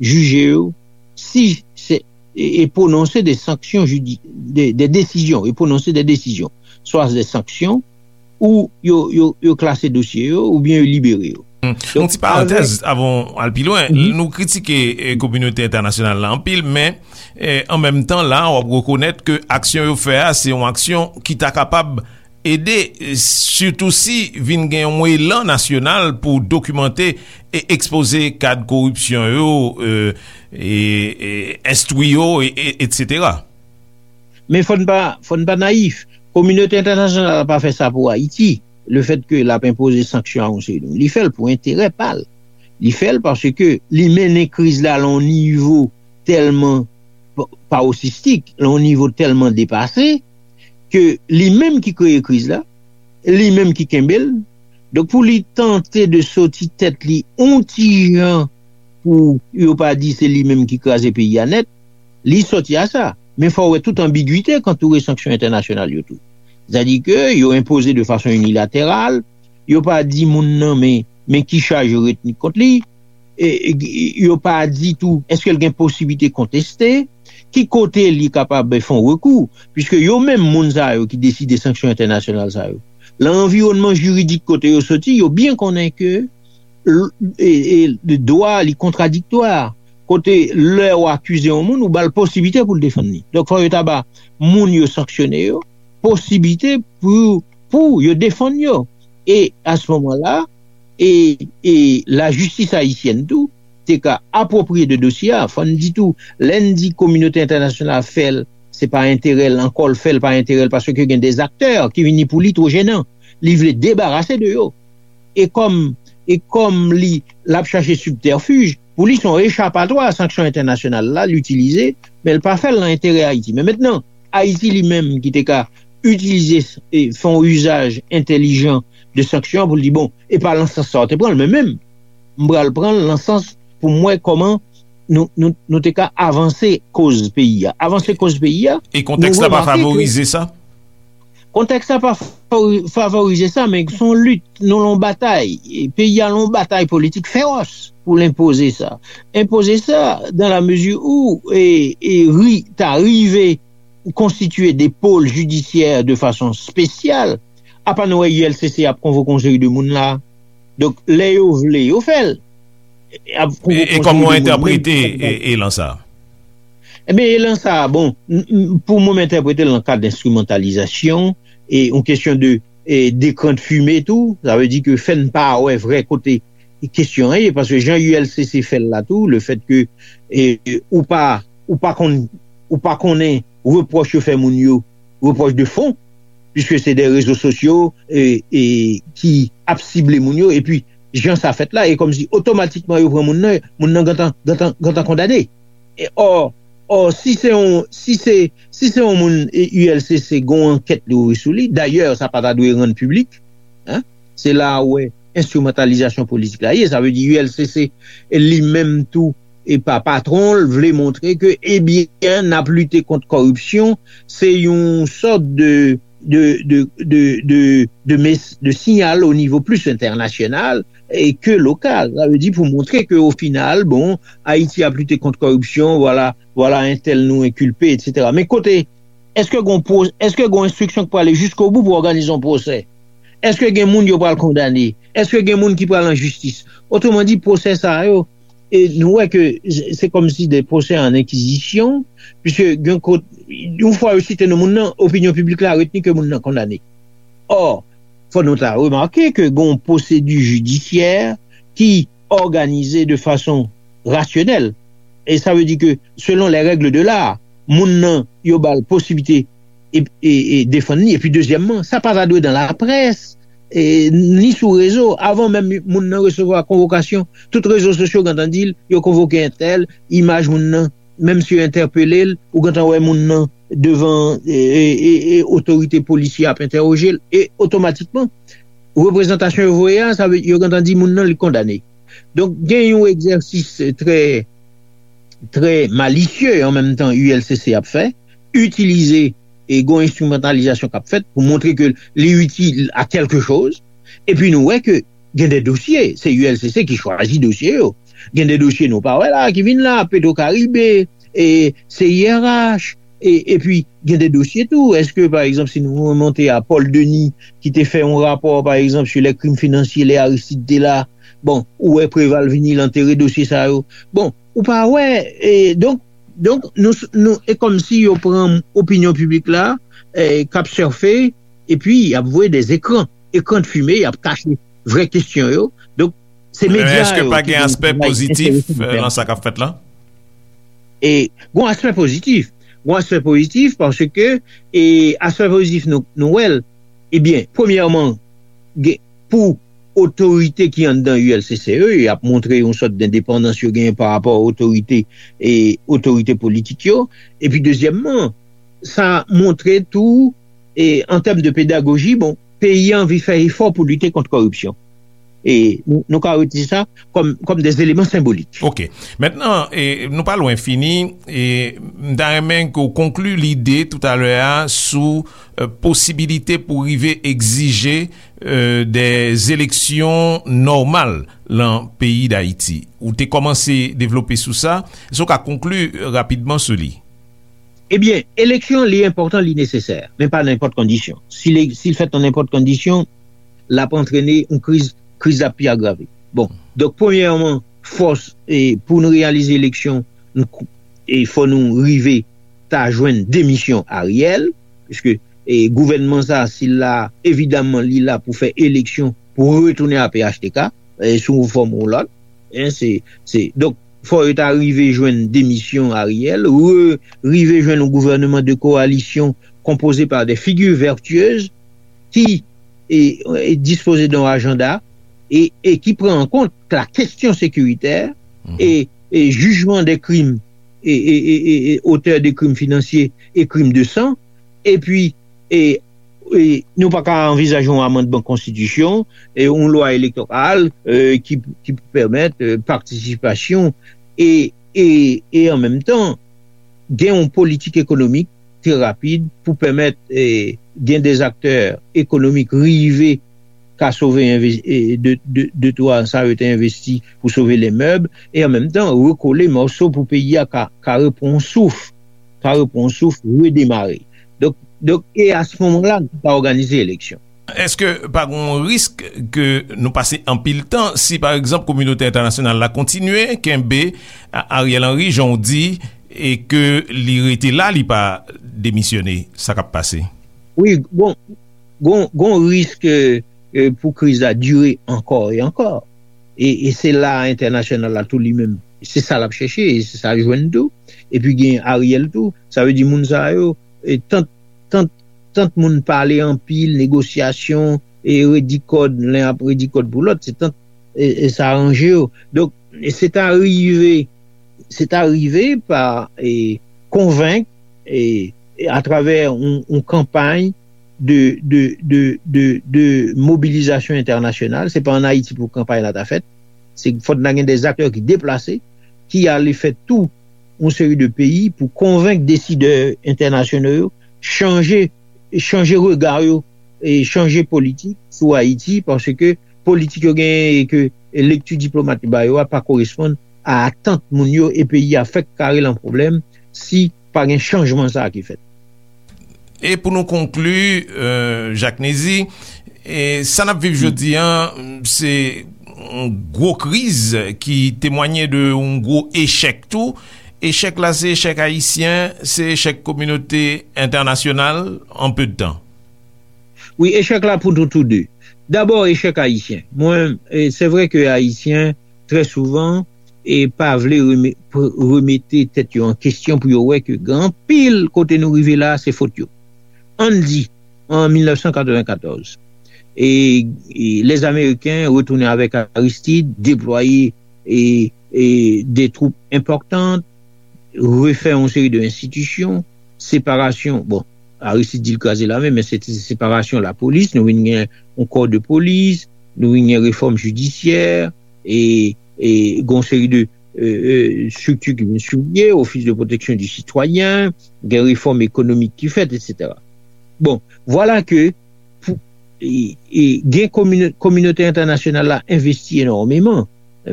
jije yo, si se, e, e pwononse de sanksyon jidi, de, de desizyon, e pwononse de desizyon, swa de sanksyon, ou yo, yo, yo klase dosye yo, oubyen yo libere yo. Yon ti parantèz avan w al pi lwen. Nou kritike eh, kominote entènasyonal la anpil, men eh, an menm tan la, w ap rekonèt ke aksyon yo fè a, se yon aksyon ki ta kapab ede, eh, sitou si vin gen yon elan nasyonal pou dokimante e ekspoze kad koripsyon yo, eh, e, e enstwi yo, e, e, etsetera. Men fò n pa, fò n pa nayif. Kominote entènasyonal la pa fè sa pou Ayiti. Lefètke l ap enpoze sanksyon a yon seri de moun, li fè l pou enterè pa l. Li fè l paske li mennen kriz la lan yon nivo tèlman pa-, paroxistik, lan yon nivo tèlman depase, ke li menm ki kreye kriz la, li menm ki kenbe l. Donk, pou li tante de soti tèt li yon ti jan pou yo pa di se li menm ki kraze peyi a nèt, li sòti a sa. Men fò w wè tout anbigite k antoure sanksyon entènasyonal yo tou. Sètadi ke yo enpoze de fason inilateral, yo pa di moun nan men, men ki chaj yo retni kont li, e, e, yo pa di tou èske l gen posiblite konteste, ki kote li kapab fè yon rekou, piske yo menm moun sa yo ki deside sanksyon entènasyonal sa yo, lan anviwònman jiridik kote yo soti, yo byen konnen ke l-, e, e, dwa li kontradiktwa. Kote lè w akize yon moun, ou ba l posiblite pou l defann li. Donk, fò yo ta ba moun yo sanksyone yo posiblite pou, pou yo defann yo. E a se moman la, e, e lajistis ayisyèn tou te ka apwopriye de dosye a. Fò n di tou, lè n di kominote entènasyonal fè l, se pa enterè l ankò l fè l, pa enterè l, paske gen de aktè ki vini pou li two jenan. Li vle debarase de yo. E kòm, e kòm li, l ap chache sibtèfij, pou li se yon echapatwa a sanksyon entènasyonal la, l itilize, men l pa fè l nan enterè Ayiti. Men mentnan, Ayiti li menm ki te ka itilize, e, fè yon izaj entèlijan de sanksyon an pou l di, bon, e pa lan sans sa w te pran l, men menm, m pral pran l lan sans pou m wè kòman nou, nou, nou te ka avanse koz peyi a. Avanse koz peyi a, E kontèks la pa favorize sa? Kontèks la pa favori-, favorize sa, men se yon lit, nou lan batay. E peyi a lan batay politik fewòs pou l enpoze sa. Enpoze sa, dan la mezi ou, e, e ri, ta rive konstitye de pol jidisyè de fason espesyal, apa nou wè U L C C ap konvoke yon seri de moun la. Donk, lè yo vle, yo fè l. ap pran yon konseye de moun, menm si sa pa... Ebyen, elan sa a, bon, pou mwen, m entèprete l nan kad enstrimantalizasyon, e yon kesyon de, e, dekran de fime tou, sa vle di ke fè n pa wè vrè kote kesyon an ye, paske jan U L C C fè l la tou, le fèt ke, e, ou pa, ou pa konn, ou pa konnen repwòch yo fè moun yo, repwòch de fon, piske se de rezo sosyo, e, e, ki ap sible moun yo, epi jan sa fèt la, e kòmsi otomatikman yo pran moun nan, moun nan gentan, gentan, gentan kondane. E, ò, ò, si se yon, si se, si se yon moun, e, U L C C gen yon ankèt li ouvri sou li, dayè, sa pa ta dwe rann piblik, en, se la a ou wè enstrimantalizasyon politik la ye. Sa vle di U L C C li menm tou, e pa patwon l, vle montre ke, ebyen, n ap lite kont kòripsyon, se yon sòt de, de, de, de, de, de, mes- de siyal o nivo plis entènasyonal e ke lokal. Sa vle di pou montre ke o final, bon, Ayiti ap lite kont kòripsyon, vwala, vwala entèl nou enkilpe, etsetera. Men kote, èske gon pwo- èske gon enstriksyon k prale jiskobou pou òganize yon pwosè? Èske gen moun yo pral kondane? Èske gen moun ki pral an jistis? Otreman di, pwosè sa yo, e nou wè ke se kòmsi de pwosè an enkizisyon, piske gen kote, yon fwa yo site non moun nan, opinyon piblik la retni ke moun nan kondane. Ò, fò nou ta remake ke gen yon pwosedi jidisyè ki òganize de fason rasyonèl. E sa vle di ke, selon les règles de l'art, moun nan, yo ba l posiblite e, e, e defann li. Epi, dezyèmman, sa pa ta dwe dan laprès, e, ni sou rezo. Avan menm moun nan resevwa konvokasyon, tout rezo sosyo gentan di l, yo konvoke entèl, imaj moun nan, menm si yo entèpele l, ou gentan wè moun nan devan, e, e, e, e otorite polisye ap entèwoje l, e otomatikman, reprezantasyon yo voye a, sa vle, yo gentan di moun nan li kondane. Donk, gen yon egzèsis trè, trè malisye an menm tan U L C C ap fè, itilize e gon enstrimantalizasyon k ap fèt pou montre ke li itil a kèlke choz. Epi nou wè ke gen de dosye, se U L C C ki chwazi dosye yo. Gen de dosye nou pa wè la, ki vin la, Petro Caribe, e C I R H, e, epi gen de dosye tou. Èske, pa egzanp, si nou remonte a Paul Denis, ki te fè yon rapò, pa egzanp, sur les crimes financiers, lè Aristide te la, bon, ou wè Preval vini, l antere dosye sa yo. Bon, ou pa wè, e, donk, donk, nou, nou, e kòmsi yo pran opinyon piblik la, e, k ap sèfe, epi y ap voye de ekran, ekran de fime, y ap kache vrè kesyon yo. Donk, se medya yo ki gen yon travay enterese pou fè. Men èske pa gen aspè pozitif, e, nan sa k ap fèt la? E, gon aspè pozitif. Gon aspè pozitif paske, e, aspè pozitif nou, nou wè l. Ebyen, premyèman, gen, pou otorite ki anndan U L C C yo, y ap montre yon sòt dendepandans yo genyen pa rapò a otorite, e, otorite politik yo. Epi, dezyèmman, sa montre tou, e, an tèm de pedagoji, bon, peyi a anvi fè efò pou lite kont kòripsyon. E nou, nou ka retire sa kòm, kòm de eleman senbolik. Ok. Mentnan, e, nou pa lwen fini, e m ta renmen ke w konkli lide toutalè a sou, e, posibilite pou rive egzije, e, de eleksyon nòmal lan peyi Dayiti. Ou te kòmanse devlope sou sa. Èske w ka konkli rapidman sou li? Ebyen, eleksyon, li enpòtan, li nesesè, men pa nan nenpòt kondisyon. Si li, si l fèt nan nenpòt kondisyon, l ap antrene yon kriz, kriz la pi agrave. Bon, donk, premyèman, fòs, e, pou n reyalize eleksyon, n kou- e fò nou rive ta jwenn demisyon Ariel, piske, e, gouvènman sa, si l la, evidaman, li la pou fè eleksyon, pou retounen a P H T K, e, sou yon fòm ou lòt. En, se, se, donk, fò yo ta rive jwenn demisyon Ariel, re, rive jwenn yon gouvènman de kowalisyon konpoze pa de figi vètyez ki, e, e dispoze de yon ajanda e, e ki pran an kont la kesyon sekiritè e, e jijman de krim, e, e, e, e, e otè de krim finansye e krim de san, epi, e, e nou pa ka anvizaje yon amandman konstitisyon, e yon lwa elektoral, e, ki, ki pou pèmèt, e, patisipasyon e, e, e an menm tan, gen yon politik ekonomik trè rapid pou pèmèt, e, gen de aktè ekonomik rive ka sove enve- e, de, de, de twa sa yo te envesti pou sove les meubles, e an menm tan rekole mòso pou peyi a ka, ka repran souf, ka repran souf, redemare. Donk, donk, e a se moman la, nou ka òganize eleksyon. Èske pa gen yon risk ke nou pase anpil tan si, pa egzanp, kominote entènasyonal la kontinye kenbe A- Ariel Henry, jan w di, e ke li rete la, li pa demisyone? Sa k ap pase? Wi, gon, gon, gon risk eh, eh, pou kriz la dire ankò e ankò. E, e se la entènasyonal la tou li menm. Se sa l ap chèche, e se sa l jwenn tou. Epi gen Ariel tou. Sa vle di moun sa yo, e tant, tant, tant moun pale anpil, negosyasyon, e redi kòd, len ap redi kòd pou lòt, se tant, e, e sa ranje yo. Donk, e se ta rive, se ta rive pa e, konvenk e, e atravè yon, yon kanpay de, de, de, de, de mobilizasyon entènasyonal. Se pa ann Ayiti pou kanpay la ta fèt. Se fòk nan gen de aktè ki deplase, ki ale fè tou yon seri de peyi pou konvenk desidè entènasyonal yo chanje, chanje rega yo e chanje politik sou Ayiti, paske politik yo genyen e ke lekti diplomat yo ba yo a pa koresponn a atant moun yo, e peyi a fèk kare lan pwoblèm si pa gen chanjman sa a ki fèt. E pou nou konkli, euh, Jacques Nézy, e sa n ap viv jodi an, se yon gwo kriz ki temwanye de yon gwo echèk tou. Echèk la, se echèk ayisyen, se echèk kominote entènasyonal an pe de tan. Wi, echèk la pou nou tou de. Dabò, echèk ayisyen. Mwen, e, se vre ke ayisyen, trè souvan, e pa vle reme- pr- remete tèt yo an kesyon pou yo wè ke gen anpil kote nou rive la, se fot yo. Ann di, an mil nèf san katreven katòz, e, e lèzameriken retounen avèk Aristide, deplwaye e, e de twoup enpòtan, refè yon seri de enstitisyon, separasyon, bon, Aristide di l kraze lame, men se te separasyon lapolis, nou vin gen yon kò de polis, nou vin gen refòm jidisyè, e, e gen yon seri de e, e, estrikti ki vin sou pye, Office de Protection du Citoyen, gen refòm ekonomik ki fèt, etsetera. Bon, vwala ke pou, e, e, gen komino- kominote entènasyonal la envesti enòmeman,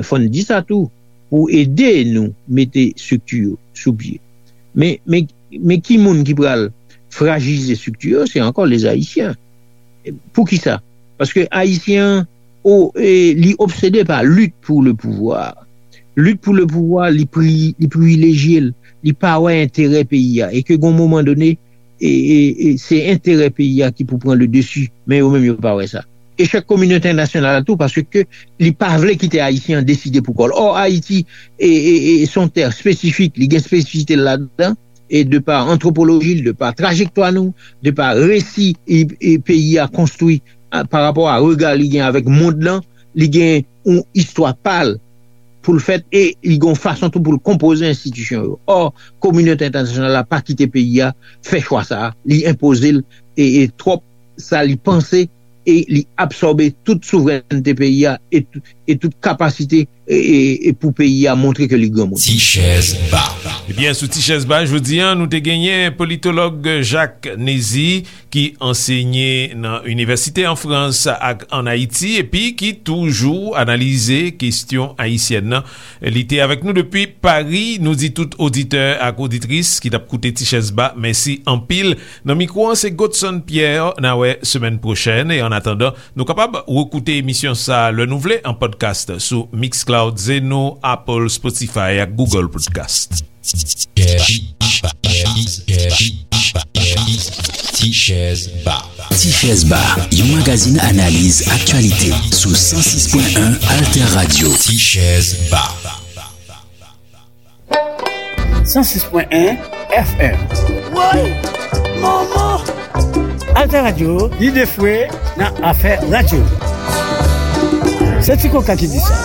fò n di sa tou, pou ede nou mete estrikti yo sou pye. Men, men, men ki moun ki pral frajilize estrikti yo? Se ankò lèzayisyen. Poukisa? Paske ayisyen an, o, e, li obsede pa lit pou le pouvwa. Lit pou le pouvwa, li pri- li privilejye l, li pa wè enterè peyi a. E ke gon moman done, e, e, e se enterè peyi a ki pou pran le desi, men yo menm yo pa wè sa. Echèk kominote entènasyonal la tou, paske li pa vle kite ayisyen an deside pou kò l. Ò, Ayiti e, e, e se yon tè espesifik, li gen espesifite l ladan, e de pa antwopoloji l, de pa trajektwa nou, de pa resi e, e peyi a konstwi a, pa rapò a rega li gen avèk mond lan, li gen yon istwa pa l pou l fèt, e li gen yon fason tou pou l konpoze enstitisyon yo. Ò, kominote entènasyonal la pa kite peyi a fè chwa sa a, li enpoze l e, e twòp sa li panse, e li absòbe tout souvrènte peyi a e, tou- e tout kapasite e, e, e pou peyi a montre ke li granmoun. Ti chèz ba. Ebyen, sou Ti chèz ba jodi a, nou te genyen politològ Jacques Nézy, ki ansenye nan inivèsite an Frans ak ann Ayiti, epi ki toujou analize kesyon ayisyèn nan. Li te avèk nou depi Pari. Nou di tout oditè ak oditris ki t ap koute Ti chèz ba, mèsi anpil. Nan mikwo an, se Godson Pierre. N a wè semèn pwochèn. E annatandan, nou kapab rekoute emisyon sa a lè nou vle an podcast sou Mixcloud, Zeno, Apple, Spotify ak Google Podcast. Ti chèz ba. Ti chèz ba, yon magazin analiz aktyalite sou san sis pwen en Alter Radio. Ti chèz ba. san sis pwen en F M. Woy! Manman! Alter Radio, lide fwe nan afè radyo. Se Ti Koka ki di sa.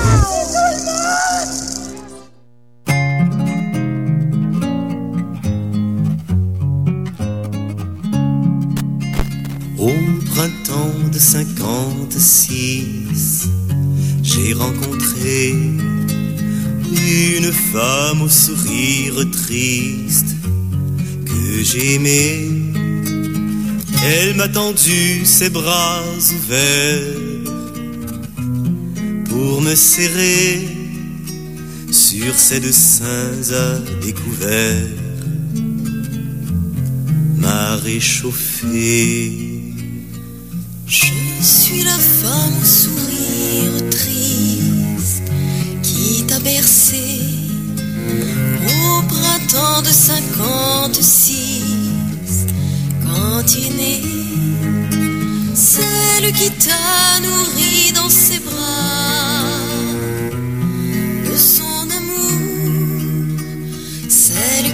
Au printemps de cinquante-six, j'ai rencontré une femme au sourire triste que j'aimais. Elle m'a tendu ses bras ouverts pour me serrer sur ses deux seins à découvert, m'a réchauffé. Je suis la femme au sourire triste qui t'a bercé au printemps de cinquante-six, quand est née celle qui t'a nourri dans